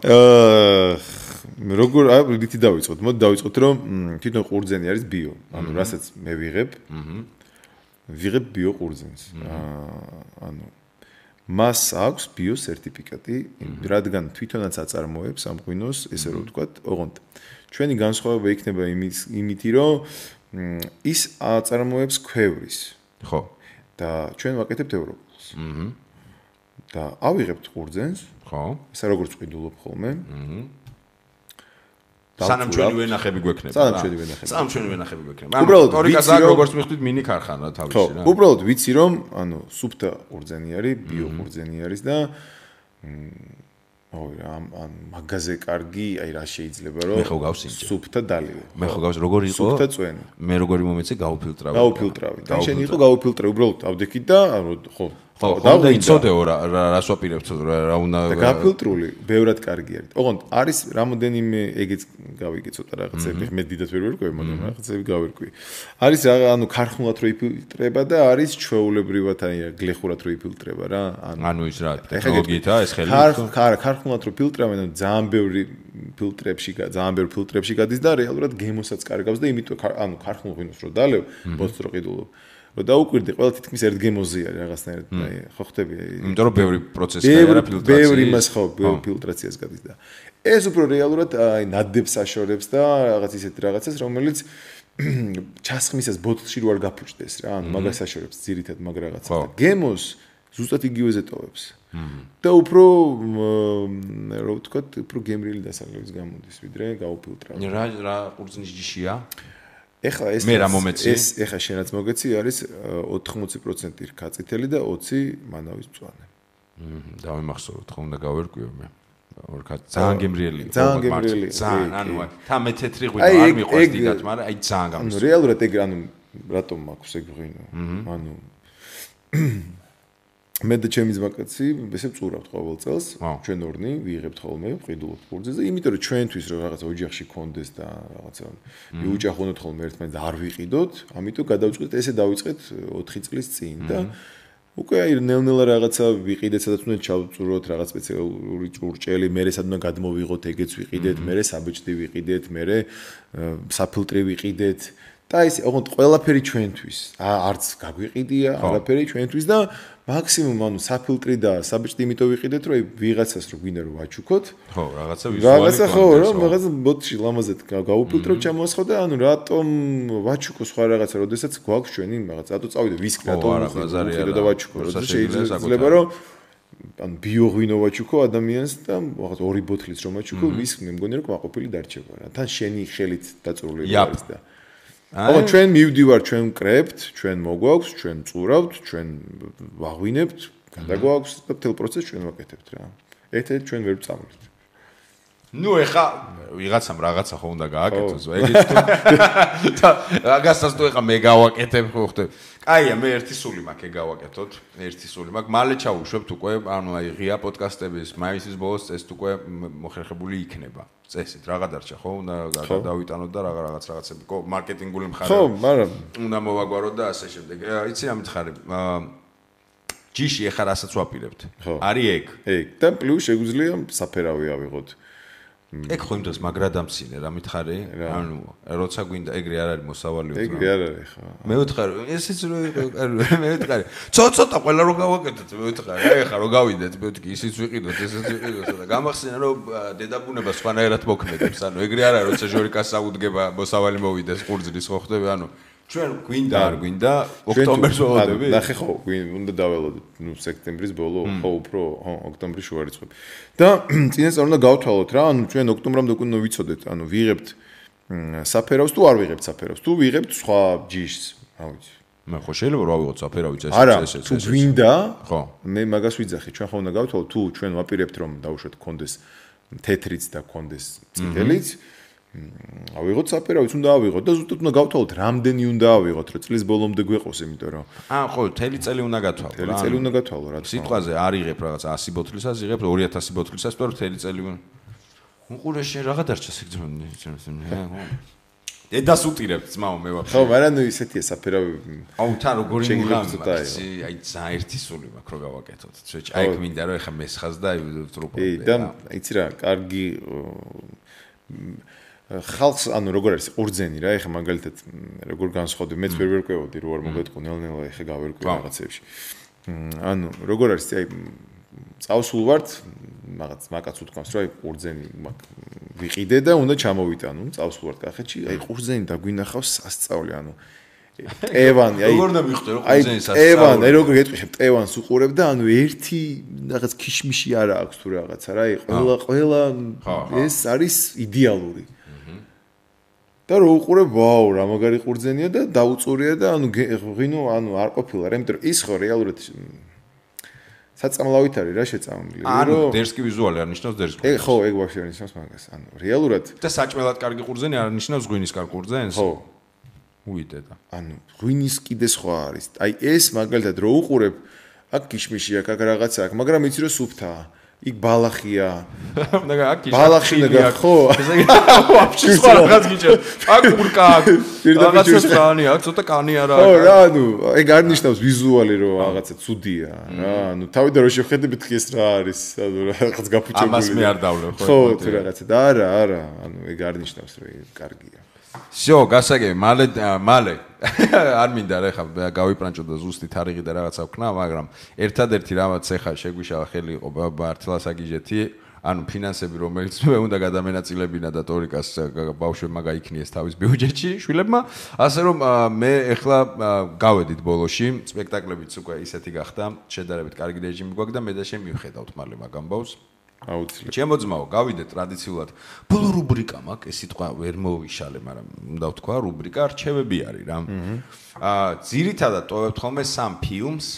როგორ რითი დავიწყოთ? მოდი დავიწყოთ, რომ თვითონ ყურძენი არის ბიო. ანუ რასაც მე ვიღებ. ვიღებ ბიო ყურძენს. ანუ მას აქვს ბიო სერტიფიკატი, რადგან თვითონაც აწარმოებს ამ ღვინოს, ესე რომ ვთქვათ, ოღონდ ჩვენი განსხვავება იქნება იმითი, რომ ის აწარმოებს ქვევრის. ხო. და ჩვენ ვაკეთებთ ევროპულს. და ავიღებთ ყურძენს. ხო. ესა როგორც ყიდულობ ხოლმე. სანამ ჩვენი ვენახები გვექნება. სანამ ჩვენი ვენახები გვექნება. უბრალოდ ისტორიკას აქ როგორც მიხვდით მინი ქარხანა თავისი რა. ხო, უბრალოდ ვიცი რომ ანუ სუფთა ყურძენი არის, ბიო ყურძენი არის და ან მაგაზე კარგი, აი რა შეიძლება რომ სუფთა დალივე. მე ხო გავს როგორი იყო? სუფთა წვენი. მე როგორი მომეცე გავუფილტრავი. და შენ იყო გავუფილტრავი, უბრალოდ ავდექით და ხო და იცოდეო რას ვაპირებთ რა უნდა და გაფილტრული ბევრად კარგი არის. ოღონდ არის რამოდენიმე ეგეც გავიგე ცოტა რაღაცები, მე დიდად ვერ ვერკვევი, მაგრამ რაღაცები გავერკვი. არის რა ანუ ქარხნულად რო იფილტრება და არის ჩვეულებრივად აი გლეხურად რო იფილტრება რა. ანუ ის რა ტექნოლოგიითაა ეს ხელი? ქარხნულად რო ფილტრავენ, ანუ ძალიან ბევრი ფილტრებში გადის და რეალურად გემოსაც კარგავს და იმიტომ ანუ ქარხნულ ღვინოს რო დალევ, ბოთს რო ყიდულობ რომ დაუკვირდი, ყველა თითქმის ერთ გემოზე არის რაღაცნაირად, აი, ხო ხტები? იმიტომ რომ ბევრი პროცესი არა ფილტრაციის. ბევრი მას ხო, ფილტრაციას გადის და ეს უფრო რეალურად აი ნადებს აშორებს და რაღაც ისეთი რაღაცას, რომელიც ჩასხმისას ბოთლში რო არ გაფუჭდეს რა, ანუ მაგას აშორებს ძირითად მაგ რაღაცას და გემოს ზუსტად იგივეზე ტოვებს. და უფრო რა ვთქვათ, უფრო გემრიელი დასაღლების გამოდის, ვიდრე გაუფილტრავ. რა ყურძნის ჯიშია? ეხლა ეს ეხლა შენაც მოგეცი არის 80% რქაწითელი და 20 მანავის მწვანე. დავიმახსოვროთ, ხო უნდა გავერკვიო მე. ძალიან გემრიელი. ძალიან გემრიელი. ძალიან, ანუ თა მე თეთრი ღვინო არ მიყვარს დიდად, მაგრამ აი ძალიან გამოსწორ. ანუ რეალურად ეგ ანუ რატომ მაქვს ეგ ღვინო? ანუ მე და ჩემი ძმაკაცი ესე ვწურავთ ყოველ წელს, ჩვენ ორნი ვიღებთ ხოლმე ყიდულობთ ყურძენს და იმიტომ რომ ჩვენთვის რომ რაღაცა ოჯახში კონდეს და რაღაცა მიუჭახუნოთ ხოლმე ერთმანეთს და არ ვიყიდოთ, ამიტომ გადავწყვეტ ესე დავიწყეთ 4 წლის წინ და უკვე აი ნელ-ნელა რაღაცა ვიყიდეთ, სადაც უნდა ჩავწუროთ რაღაც სპეციალური ჭურჭელი, მერე სად უნდა გადმოვიღოთ, ეგეც ვიყიდეთ, მერე საბეჭდი ვიყიდეთ, მერე საფილტრი ვიყიდეთ და ისე ოღონდ ყველაფერი ჩვენთვის. არც გაგვიყიდია, არაფერი ჩვენთვის და მაქსიმუმ ანუ საფილტრი და საბეჭდი იმიტომ ვიყიდეთ, რომ ვიღაცას რო გვინდა რომ ვაჩუქოთ. ხო, რაღაცა ვიზუალი. რაღაცა ხო, რომ რაღაცა ბოტში ლამაზად გავუფილტრო ჩამოსხო და ანუ რატომ ვაჩუქო სხვა რაღაცა, როდესაც გვაქვს ჩვენი რაღაცა, რატო წავიდე ვისკი, რატომ ვიყიდო და ვაჩუქო, როდესაც შეიძლება რომ ანუ ბიო ღვინო ვაჩუქო ადამიანს და რაღაცა 2 ბოთლიც რომ ვაჩუქო, ვისკი მე მგონი რომ კმაყოფილი დარჩება რა. თან შენი ხელით დაწურული არის და ოღონდ ჩვენ მივდივართ, ჩვენ ვკრებთ, ჩვენ მოგვაქვს, ჩვენ წურავთ, ჩვენ ვაღვინებთ, გადაგვაქვს და მთელ პროცესს ჩვენ ვაკეთებთ რა. ერთ-ერთ ჩვენ ვერ ვწავლით. ნუ ეხა ვიღაცამ რაღაცა ხო უნდა გააკეთოს, ეგეც თუ და რაღაცას თუ ეხა მე გავაკეთებ ხო ხტები. კაია, მე ერთი სული მაქვს ეგ გავაკეთოთ, ერთი სული მაქვს. მალე ჩავუშვებთ უკვე, ანუ აი ღია პოდკასტების მაისის ბოლოს წესით უკვე მოხერხებული იქნება. წესით რაღა დარჩა ხო? უნდა დავიტანოთ და რაღაცები მარკეტინგული მხარე. ხო, მაგრამ უნდა მოვაგვაროთ და ასე შემდეგ. იცი რა მითხარი? ჯიში ეხა რასაც ვაპირებთ. არის ეგ. ეგ და პლუს შეგვიძლია საფერავი ავიღოთ. ეგ ხო იმ დროს მაგრადამცინე რა მითხარი? ანუ როცა გვინდა ეგრე არ არის მოსავალი უძრავ. ეგრე არ არის ხო. მე ვთხარი, ესეც მე ვთხარი. ცოტა ყველა რო გავაკეთოთ, მე ვთხარი. აი ხა რო გავიდეთ, მე ვთქი, ისიც ვიყიდოთ, ესეც ვიყიდოთ და გამახსენა რომ დედაბუნება სხვანაირად მოქმედებს. ანუ ეგრე არ არის, როცა ჟორიკას საუდგება მოსავალი მოვიდეს ყურძნის ხო ხტები, ანუ ჩვენ გვინდა არ გვინდა ოქტომბერს ვავდები. ნახე ხო, უნდა დაველოდოთ, ნუ სექტემბრის ბოლო, ხო უფრო, ხო, ოქტომბრის შუა რიცხვები. და წინასწარ უნდა გავთვალოთ რა, ანუ ჩვენ ოქტომბრამდე უკვე ვიცოდეთ, ანუ ვიღებთ საფერავს თუ არ ვიღებთ საფერავს, თუ ვიღებთ სხვა ჯიშს, რა ვიცი. მე ხო შეიძლება რა ვიღოთ საფერავი წესი წესი. თუ გვინდა, ხო, მე მაგას ვიძახი, ჩვენ ხო უნდა გავთვალოთ, თუ ჩვენ ვაპირებთ რომ დავუშვათ კონდეს თეთრიც და კონდეს წითელიც. ავიღოთ საფერავიც უნდა ავიღოთ და ზუსტად უნდა გავთვალოთ რამდენი უნდა ავიღოთ რომ წლის ბოლომდე გვეყოს იმიტომ რომ ხო თელი წელი უნდა გათვალო თელი წელი უნდა გათვალო რა სიტყვაზე არ იღებ რაღაც 100 ბოთლისას იღებ 2000 ბოთლისას თუ თელი წელი უყურე შენ რაღაცა დარჩა სიგრძნე დედას უტირებ ძმაო მე ვაფშე ხო მაგრამ ნუ ისეთია საფერავი აუ თან როგორი მიღამი აი ძალიან ერთი სული მაქვს რომ გავაკეთოთ აი მინდა რომ ეხა მესხას და ტრუპო და იცი რა კარგი ხალხს ანუ როგორ არის ყურძენი რა ეხა მაგალითად როგორ განსხვავდება მეც ვერ ვერკვევოდი რო არ მოგეთყო ნელ-ნელა ეხა გავერკვე რაღაცებში ანუ როგორ არის აი წავსულ ვართ მაგაც მაგაც უთქვამს რომ აი ყურძენი ვიყიდე და უნდა ჩამოვიტანო წავსულ ვართ კახეთში აი ყურძენი დაგვინახავს სასწაული ანუ ტევანი აი როგორ უნდა მივხვდე რომ ყურძენი სასწაული ტევანი აი როგორ გეტყვი ტევანს უყურებ და ანუ ერთი რაღაც ქიშმიში არა აქვს თუ რაღაცა რა აი ყველა ეს არის იდეალური და რო უყურებ ვაუ რა მაგარი ყურძენია და დაუწურია და ანუ ღვინო ანუ არ ყოფილა რა იმიტომ რომ ის ხო რეალურად საწამლავით არის რა შეწამლილი ანუ დერსკი ვიზუალი არ ნიშნავს დერსკი ხო ეგ ვაფშე ნიშნავს მაგას ანუ რეალურად და საჭმელად კარგი ყურძენი არ ნიშნავს ღვინის კარგი ყურძენს ხო უიტე და ანუ ღვინის კიდე სხვა არის აი ეს მაგალითად რო უყურებ აქ ქიშმიში აქ რაღაცა აქვს მაგრამ იცი რომ სუფთაა იქ ბალახია და აქ ბალახი და ხო ესე იგი ვაფშე სხვა რაღაც გიჭერ აქ ურკა აქ რაღაცა სტრანი აქ ცოტა კანი არა ხო რა ანუ ეგ არ ნიშნავს ვიზუალი რომ რაღაცა ცუდია რა ანუ თავიდან რო შეხედებით ხეს რა არის ანუ რაღაც გაფუჭებული ამას მე არ დავლევ ხო თუ რაღაცა და არა ანუ ეგ არ ნიშნავს რომ ეგ კარგია всё გასაგები მალე არ მინდა რა ხა გავიპრანჭო და ზუსტი თარიღი და რაღაცა ვქნა მაგრამ ერთადერთი რამაც ეხა შეგვიშალა ხელი იყო ბართლას აგიჟეთი ანუ ფინანსები რომელიც მე უნდა გადამენაწილებინა და ტორიკას ბავშვებმა გაიქნიეს თავის ბიუჯეტში შვილებმა ასე რომ მე ეხლა გავედით ბოლოში სპექტაკლებიც უკვე ისეთი გახდა შედარებით კარგი რეჟიმი გვაქვს და მე და შენ მივხედავთ მალე მაგ ამბავს აუცილებლად ჩემო ძმაო გავიდეთ ტრადიციულად ბოლო რუბრიკა მაქვს ეს სიტყვა ვერ მოვიშალე მაგრამ უნდა ვთქვა რუბრიკა რჩევები არის რა ძირითადად ტოვებთ ხოლმე სამ ფილმს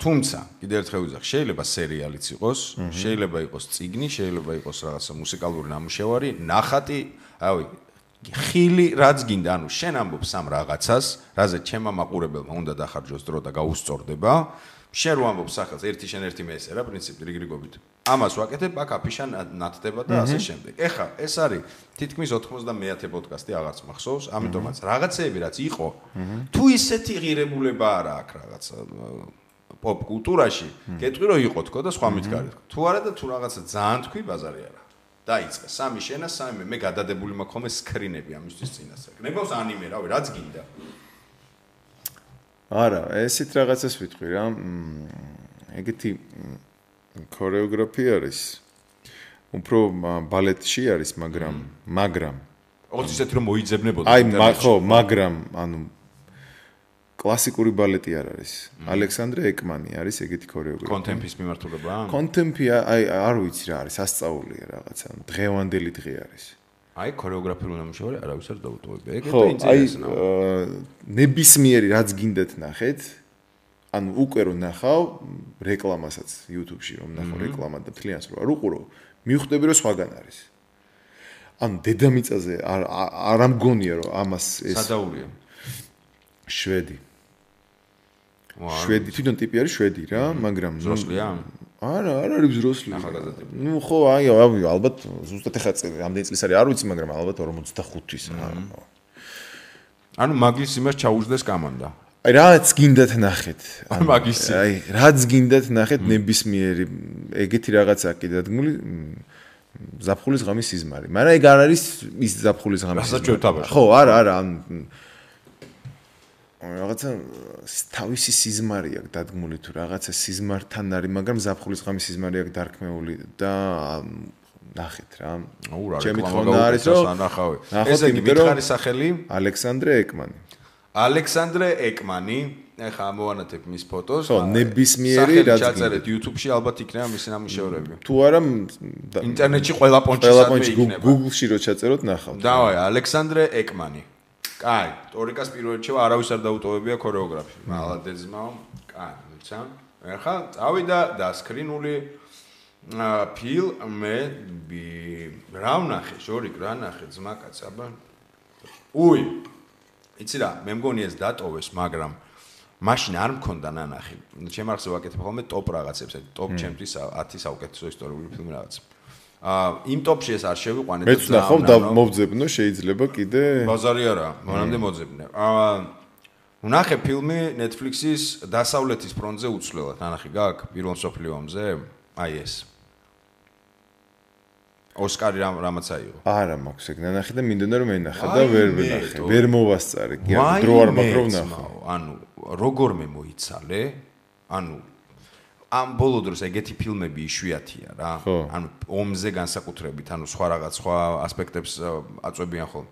თუმცა კიდევ ერთხელ ვიზახ შეიძლება სერიალიც იყოს შეიძლება იყოს წიგნი შეიძლება იყოს რაღაცა მუსიკალური ნამუშევარი ნახატი რავი ხილი რაც გინდა ანუ შენ ამბობ სამ რაღაცას რაზე ჩემმა მაყურებელმა უნდა დახარჯოს დრო და გაუსწორდება შენ რო ამბობ სახელს ერთი შენ ერთი მე ესე რა პრინციპი რიგრიგობით ამას ვაკეთებ აქ აფიშა ნათდება და ასე შემდეგ ეხა ეს არის თითქმის 90-მე პოდკასტი აღარც მახსოვს ამიტომაც რაღაცეები რაც იყო თუ ისეთი ღირებულება არა აქ რაღაცა პოპ კულტურაში გეტყვი რომ იყო თქო და სხვა მითქარი თქო თუ არა და თუ რაღაცა ძალიან თქვი ბაზარი არა დაიწყე სამი შენა სამი მე გადადებული მაქვს ხოლმე სკრინები ამისთვის წინასწარ გნებავს ანიმე რავი რაც გინდა არა ესეთ რაღაცას ვიტყვი რა ეგეთი ქორეოგრაფია არის უფრო ბალეტში არის მაგრამ ოღონდ ისეთი რომ მოიძებნებოდა აი ხო მაგრამ ანუ კლასიკური ბალეტი არ არის ალექსანდრე ეკმანი არის ეგეთი ქორეოგრაფია კონტემპის მიმართულება კონტემპი აი არ ვიცი რა არის სასწაულია რაღაცა დღევანდელი დღე არის აი ქორეოგრაფიული ნამუშევარი არავის არ დაუტოვებია ეგ და ინტერესია ნებისმიერი რაც გინდათ ნახეთ ანუ უკვე რომ ნახავ რეკლამასაც YouTube-ში რომ ნახავ რეკლამა და თლიანს რო არ უყურო მივხვდები რომ სხვაგან არის ანუ დედამიწაზე არ ამგონია რომ ამას ეს სადაურია შვედი თვითონ ტიპი არის შვედი რა მაგრამ ზროსლია არა არ არის ზროსლი ნუ ხო აი ალბათ ზუსტად ეხა რამდენი წლის არის არ ვიცი მაგრამ ალბათ 45-ის ანუ მაგის იმას ჩაუждდეს კამანდა აი რაც გინდათ ნახეთ აი რაც გინდათ ნახეთ ნებისმიერი ეგეთი რაღაცა კი დადგმული ზაფხულის ღამის სიზმარი მაგრამ ეგ არ არის ის ზაფხულის ღამის სიზმარი ხო არა რაღაცა თავისი სიზმარი აქვს დადგმული თუ რაღაცა სიზმართან არის მაგრამ ზაფხულის ღამის სიზმარი აქვს დარქმეული და ნახეთ რა ჩემი თქმა არის რომ ესე იგი მითხარი სახელი ალექსანდრე ეკმანი ეხა ამოვანათებ მის ფოტოს ხო ნებისმიერი რაც ჩაწერეთ YouTube-ში ალბათ იქნება მისი ნამუშევრები თუ არა ინტერნეტში ყველა პონჩი იქნება Google-ში რო ჩაწეროთ ნახავთ დავაი ალექსანდრე ეკმანი კაი ტორიკას პირველ რჩევა არავის არ დაუტოვებია ქორეოგრაფია მალადეძმაო კაი მიცა ეხა წავიდა და სკრინული ფილმები რა ვნახე ჟორიკ რა ნახე ძმაკაც აბა უი იცი რა მე მგონი ეს დატოვეს მაგრამ მაშინ არ მქონდა ნანახი ჩემ ახსოვს ვაკეთებ ხოლმე ტოპ რაღაცებს ტოპ ჩემთვის 10 საუკეთესო ისტორიული ფილმი რაღაც იმ ტოპში ეს არ შევიყვანე და მეც ნახავ და მოვძებნო შეიძლება კიდე ბაზარი არა მანამდე მოძებნე ვნახე ფილმი Netflix-ის დასავლეთის ფრონტზე უცვლელად ნანახი გაქვს პირველ მსოფლიო ომზე აი ეს ოსკარი რამაც აიღო არა მაქვს ეგ ნანახი და მინდოდა რომ ენახა და ვერ ვნახე ვერ მოვასწარე კი დრო არ მაქვს რომ ნახო ანუ როგორმე მოიცალე ანუ ამ ბოლო დროს ეგეთი ფილმები იშვიათია რა. ანუ ომზე განსაკუთრებით, ანუ სხვა რაღაც სხვა ასპექტებს აწვევიან ხოლმე.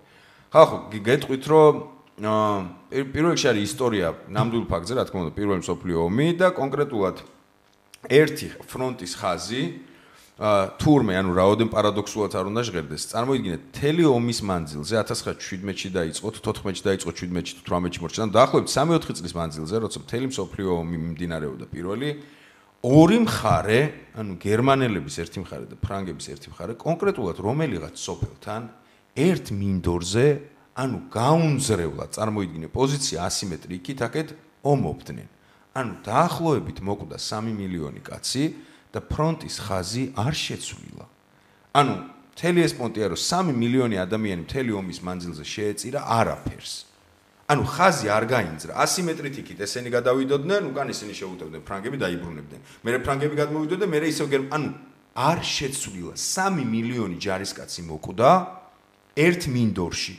ხო, გეტყვით რომ პირველ რიგში არის ისტორია ნამდვილ ფაქტზე, რა თქმა უნდა, პირველი მსოფლიო ომი და კონკრეტულად ერთი ფრონტის ხაზი თურმე, ანუ რაოდენ პარადოქსულად არ უნდა ჟღერდეს. წარმოიდგინეთ, მთელი ომის მანძილზე 1917-ში დაიწყო, 14-ში დაიწყო, 17-ში, 18-ში მორჩა. ანუ დაახლოებით 3-4 წლის მანძილზე, როცა მთელი მსოფლიო ომი მიმდინარეობდა პირველი ორი მხარე, ანუ გერმანელების ერთი მხარე და ფრანგების ერთი მხარე, კონკრეტულად რომელიღაც სოფელთან ერთ მინდორზე, ანუ გაუნძრევლად წარმოიდგინე პოზიცია ასიმეტრიკით, აქეთ ომობდნენ. ანუ დაახლოებით მოკვდა 3 მილიონი კაცი და ფრონტის ხაზი არ შეცვლილა. ანუ მთელი ეს პონტია, რომ 3 მილიონი ადამიანი მთელი ომის მანძილზე შეეწირა არაფერს. ანუ ხაზი არ გაინძრა. ასიმეტრით იქით ესენი გადავიდოდნენ, უკან ისინი შეუტევდნენ, ფრანგები დაიბრუნებდნენ. მერე ფრანგები გადმოვიდოდნენ, მერე ისევ ანუ არ შეცვლილა. 3 მილიონი ჯარისკაცი მოკვდა ერთ მინდორში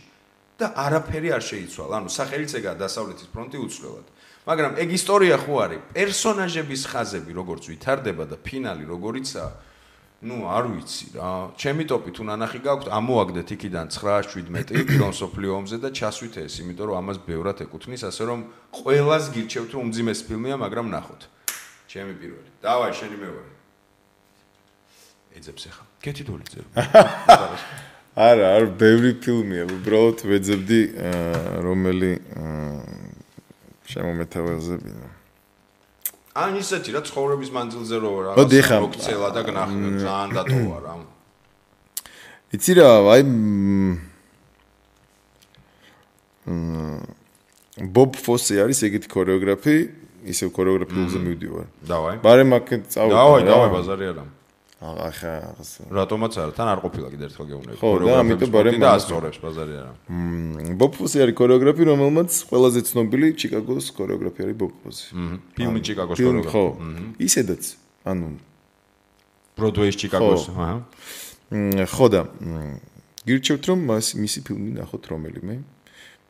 და არაფერი არ შეიცვალა. ანუ სახელიც ეგაა დასავლეთის ფრონტი უცვლელად. მაგრამ ეგ ისტორია ხო არის? პერსონაჟების ხაზები როგორც ვითარდება და ფინალი როგორიცაა, არ ვიცი რა. ჩემი ტოპით უნანახი გაქვთ, ამოაგდეთ იქიდან 9-17 პირველ მსოფლიო ომზე და ჩასვით ეს, იმიტომ რომ ამას ბევრად ეკუთვნის, ასე რომ ყველას გირჩევთ რომ უმძიმეს ფილმია, მაგრამ ნახოთ. ჩემი პირველი. დავაი, შენი მეორე. ეძებს ახლა. კეთილდოლიძე. არა, ბევრი ფილმია, უბრალოდ ვეძებდი რომელი შემომეთავაზებინა. ან ისეთი რა ცხოვრების მანძილზე რო რაღაც მოგცელა და გნახო ძალიან დატოვა რა. იცი რა, აი ბობ ფოსი არის ეგეთი ქორეოგრაფი, ისევ ქორეოგრაფიულზე მივდივარ. დავაი. ბარემ აქეთ წავიდე. დავაი, ბაზარი არა. ახლა რატომაც არა, თან არ ყოფილა კიდე ერთხელ გეუბნები. ხო, და ამიტომ ბარემ დაასწორებს ბაზარი არა. ბობ ფოსი არის ქორეოგრაფი, რომელმაც ყველაზე ცნობილი ჩიკაგოს ქორეოგრაფი არის ბობ ფოსი. ფილმი ჩიკაგოს ქორეოგრაფი. ხო. ისედაც, ანუ ბროდვეის ჩიკაგოს, აჰა. ხო და გირჩევთ რომ მისი ფილმი ნახოთ რომელიმე.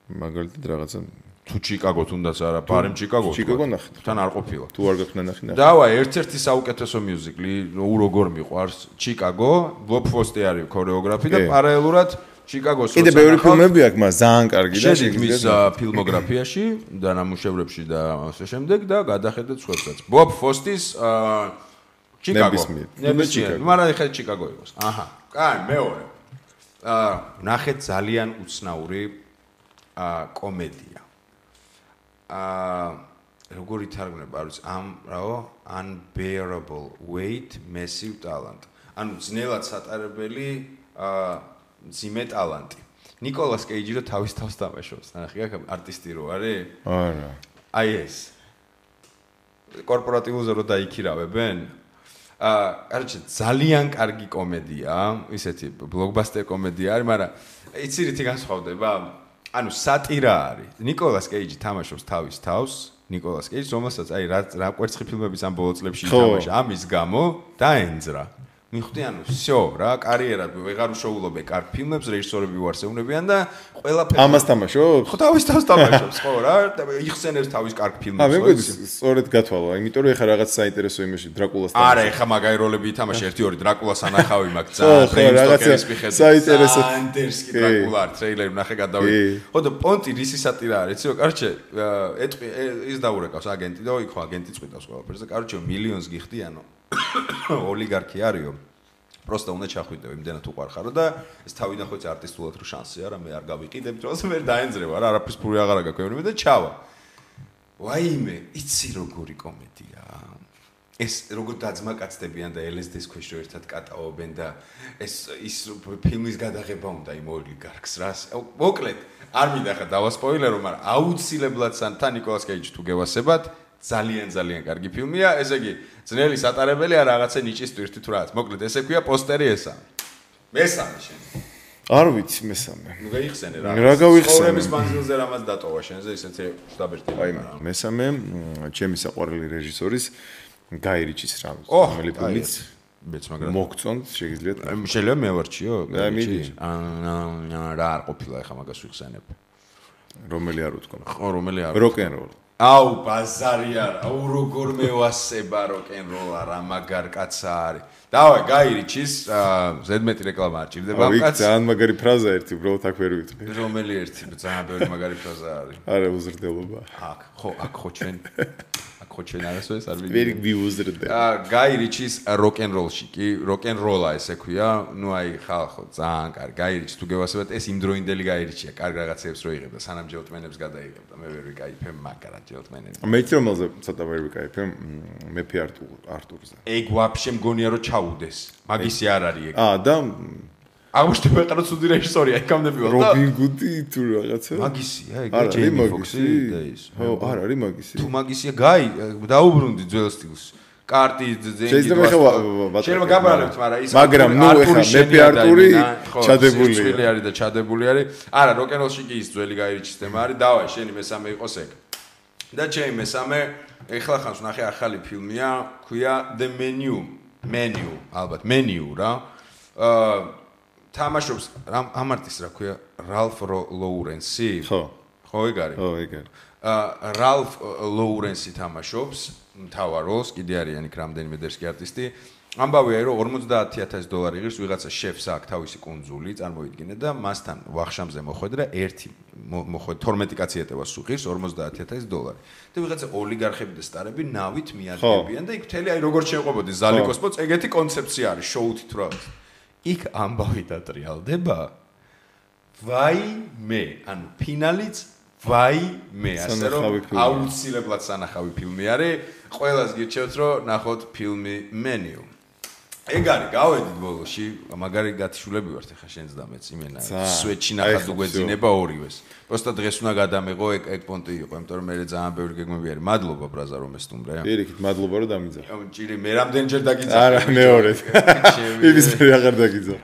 მაგალითად რაღაცა თუ ჩიკაგო თუნდაც არა, ბარემ ჩიკაგო. ჩიკაგო ნახეთ. თან არ ყოფილა. თუ არ გაქვნა ნახე. დავაი, ერთ-ერთი საუკეთესო მიუზიკლი, როგორ მიყვარს, ჩიკაგო, ბობ ფოსი არის ქორეოგრაფი და პარალელურად ჩიკაგოს კიდე ბევრი ფილმები აქვს, მაგრამ ძალიან კარგი და შეგვიძლია მის ფილმოგრაფიაში და ნამუშევრებში და ასე შემდეგ და გადახედეთ სხვებსაც. ბობ ფოსის ჩიკაგო. ნებისმიერ. მაგრამ ეხლა ჩიკაგო იყოს. აჰა. კაი, მეორე. ნახეთ ძალიან უცნაური კომედია. როგორ ითარგმნება, არ ვიცი, unbearable weight massive talent. ანუ ძნელად სატარებელი ძიმე ტალანტი. ნიკოლას კეიჯი რო თავის თავს თამაშობს, ნახე, აქ არტისტი რო არის? არა. აი ეს. კორპორატიულზე რო დაიქირავებენ? კაროჩე, ძალიან კარგი კომედია, ისეთი ბლოკბასტერ კომედია არის, მაგრამ იცი რითი განსხვავდება? ანუ სატირა არის. ნიკოლას კეიჯი თამაშობს თავის თავს, ნიკოლას კეიჯი, რომელსაც აი რა კვერცხი ფილმების ამ ბოლო წლებში ითამაშა, ამის გამო დაენძრა. მიხვდი, ანუ всё, რა, კარიერად ვეღარ უშოულობ კარგ ფილმებს, რეჟისორები უარსებუნებიან და ყველაფერი ამას თამაშობს? ხო, თავის თავს თამაშობს, ხო რა, და იხსენებს თავის კარგ ფილმებს. მეგოძი, სწორედ გათვალა, იმიტომ რომ ეხა რაღაც საინტერესო იმაში დრაკულას თამაშობს. არა, ეხა მაგარი როლები ითამაშა, 1-2 დრაკულას ანახავი მაგ ძალიან რაღაცა საინტერესო ანდერსკი დრაკულა ტრეილერი ნახე გადავიდე. ხო და პონტი რისი სატირა არის, იცი, კარჩე, ის დაურეკავს აგენტი და იქ ხო აგენტი წვიტავს ყველაფერს და კარჩე მილიონს გიხდიანო. ოლიგარქი არისო. просто უნდა ჩახვიდე, იმდენად უყარხარო და ეს თავიდან ხო არტისტულად რო შანსი არა, მე არ გავიყიდებ, დროს მე დაენძრევა რა, არაფერს ფური აღარ გაკეთებ და ჩავა. ვაიმე, იცი როგორი კომედია. ეს როგორ დაძმაკაცდებიან და LSD-ს ქვეშ რო ერთად კატაობენ და ეს ფილმის გადაღება უნდა იმ ოლიგარქს რას. მოკლედ, არ მინდა ხა დავასპოილერო, მაგრამ აუცილებლად თან ნიკოლას კეიჯი თუ გევასებათ ძალიან კარგი ფილმია, ესე იგი, ძნელი სატარებელი არა რაღაცა ნიჭის ტვირთი თუ რაღაც. მოკლედ, ესე ქვია პოსტერი ესა. მესამე შენ. არ ვიცი მესამე. ნუ გაიხსენე რა. რა გავიხსენე? ცხოვრების მანძილზე რამაც დატოვა შენზე, ისეთი შტაბერტი. აი, მესამე, ჩემი საყვარელი რეჟისორის გაი რიჩის რომელი ფილმიც მეც მაგრამ მოგწონთ, შეგიძლიათ. შეიძლება მე ვარჩიო? მიდი. რა არ ყოფილა ეხა მაგას ვიხსენებ. რომელი არ უთქვა? ხო, რომელი არ. როკ-ენ-როლ. აუ ბაზარი არა, აუ როგორ მევასება როკ-ენ-როლა რა მაგარ კაცა არის. დავай, გაირიჩის, ზედმეტი რეკლამა არ ჭირდება ამ კაცს. ძალიან მაგარი ფრაზა ერთი, უბრალოდ აქ ვერ ვიტყვი. რომელი ერთი, ძალიან ბევრი მაგარი ფრაზა არის. არა, უზრდელობა. აქ ხო ჩვენ არასოდეს არ ვერ ვიუზრდე. გაირიჩის როკ-ენ-როლში კი, როკ-ენ-როლა ესე ქვია, ნუ აი ხალხო, ძალიან კარგი. გაირიჩის თუ გევასებათ, ეს იმ დროინდელი გაირიჩია, კარგ რაღაცებს რო იღებდა, სანამ ჯელტმენებს გადაიღებდა. მე ვერ ვიკაიფე მაგრად ჯელტმენებს. მე რომელზე ცოტა ვერ ვიკაიფე, მეფე არტურზე. ეგ ვაფშე მგონია რომ ჩაუდეს. მაგისი არ არის ეგ. და აღმოჩნდა მეყარო ცუდი რეჟისორია, ეკამდები ვარ და რობინ გუდი თუ რაღაცა. მაგისია, ეგ ჯეიმი ფოქსი და ის. ხო, არ არის მაგისი. თუ მაგისია, გაი, დაუბრუნდი ძველ სტილს. კარტი ძენგი. შეიძლება გაბრალებთ, მაგრამ ნუ ეხა მეფე არტური ჩადებული არის და ჩადებული არის. არა, როკ-ენ-როლში კი ის ძველი გაირიჩის თემა არის. დავაი, შენი მესამე იყოს ეგ. და ჩემი მესამე, ეხლა ხანს ვნახე ახალი ფილმია, ქვია The Menu, ალბათ, Menu რა. თამაშობს ამ არტისტს რა ქვია რალფ ლოურენსი ხო ეგ არის რალფ ლოურენსი თამაშობს მთავარ როლს კიდე არიან იქ რამდენიმე დერსკი არტისტი ამბავია რომ $50,000 იღებს ვიღაცა შეფს აქვს თავისი კუნძული წარმოიდგინე და მასთან ვახშამზე მოხვედრა ერთი 12 კაცი ეტევა სუხის $50,000 და ვიღაცა ოლიგარხები და სტარები ნავით მიადგებიან და იქ მთელი აი როგორც შეყვებოდი ზალიკოსპოც ეგეთი კონცეფცია არის შოუთით რა იქ ამბავი დატრიალდება ვაიმე ანუ ფინალიც ვაიმე ასე რომ აუცილებლად სანახავი ფილმი არის ყველას გირჩევთ რომ ნახოთ ფილმი Menu ეგ არის გავედით ბოლოში მაგარი გათიშულები ვართ ახლა შენს და მეც იმენა სვეტში ნახად უგვეძინება ორივეს просто დღეს უნდა გადამეღო ეგ პონტი იყო იმიტომ რომ მე ძალიან ბევრი გეგმები არის მადლობა ბრაზა რომ ესტუმრე პირიქით მადლობა რომ დამიძახ ჭირი მე რამდენჯერ დაგიძახე არა მეორედ იმის ფერი აღარ დაგიძახ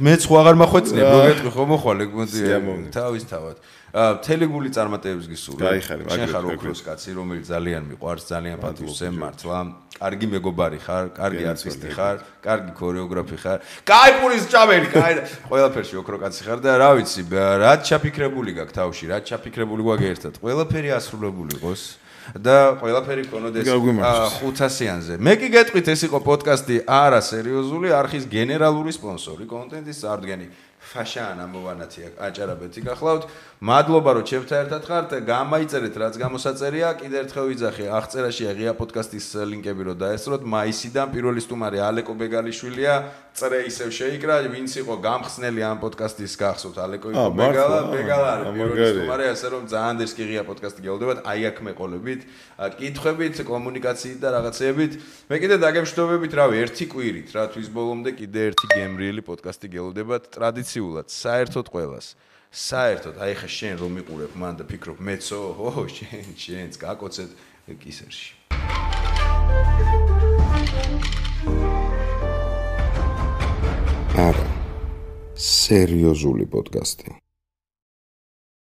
მეც ხო აღარ მახვეწნებ რო გეტყვი ხო მოხვალ ეგ პონტი თავისთავად თელეგული წარმატებებს გისურვებ. შენ ხარ ოქროს კაცი, რომელიც ძალიან მიყვარს, ძალიან პატივს ემართლა. კარგი მეგობარი ხარ, კარგი არტისტი ხარ, კარგი ქორეოგრაფი ხარ. კაი პურის ჭამელი, კაი ყველაფერში ოქრო კაცი ხარ და რა ვიცი, რაც ჩაფიქრებული გაქვს თავში, რაც ჩაფიქრებული გვაქვს ერთად. ყველაფერი ასრულებული იყოს და ყველაფერი ქონოდეს 500-იანზე. მე კი გეტყვით ეს იყო პოდკასტი არა სერიოზული, არხის გენერალური სპონსორი, კონტენტის წარდგენი. ფაშან ამოვანათია აჭარაბეთი გახლავთ მადლობა რომ ჩემთან ერთად ხართ გამაიწერეთ რაც გამოსაწერია კიდევ ერთხელ ვიძახე აღწერაში ღია პოდკასტის ლინკები რომ დაესწროთ მაისიდან პირველი სტუმარი ალეკო ბეგალიშვილია წრე ისევ შეიკრა ვინც იყო გამხსნელი ამ პოდკასტის გახსოვთ ალეკო იყო ბეგალა არის პირველი სტუმარი ასე რომ ძალიან დერსკი ღია პოდკასტი გეულდებათ აი აქ მეყოლებით კითხვებით კომუნიკაციით და რაღაცეებით მე კიდე დაგემშვიდობებით რავი ერთი კვირით რა თვის ბოლომდე კიდე ერთი გემრიელი პოდკასტი გეულდებათ ტრადიციულად საერთოდ ყველას საერთოდ აი ხა შენ რომ მიყურებ მან და ფიქრობ მეცო ო შენს გაკოცეთ კისერში არა სერიოზული პოდკასტი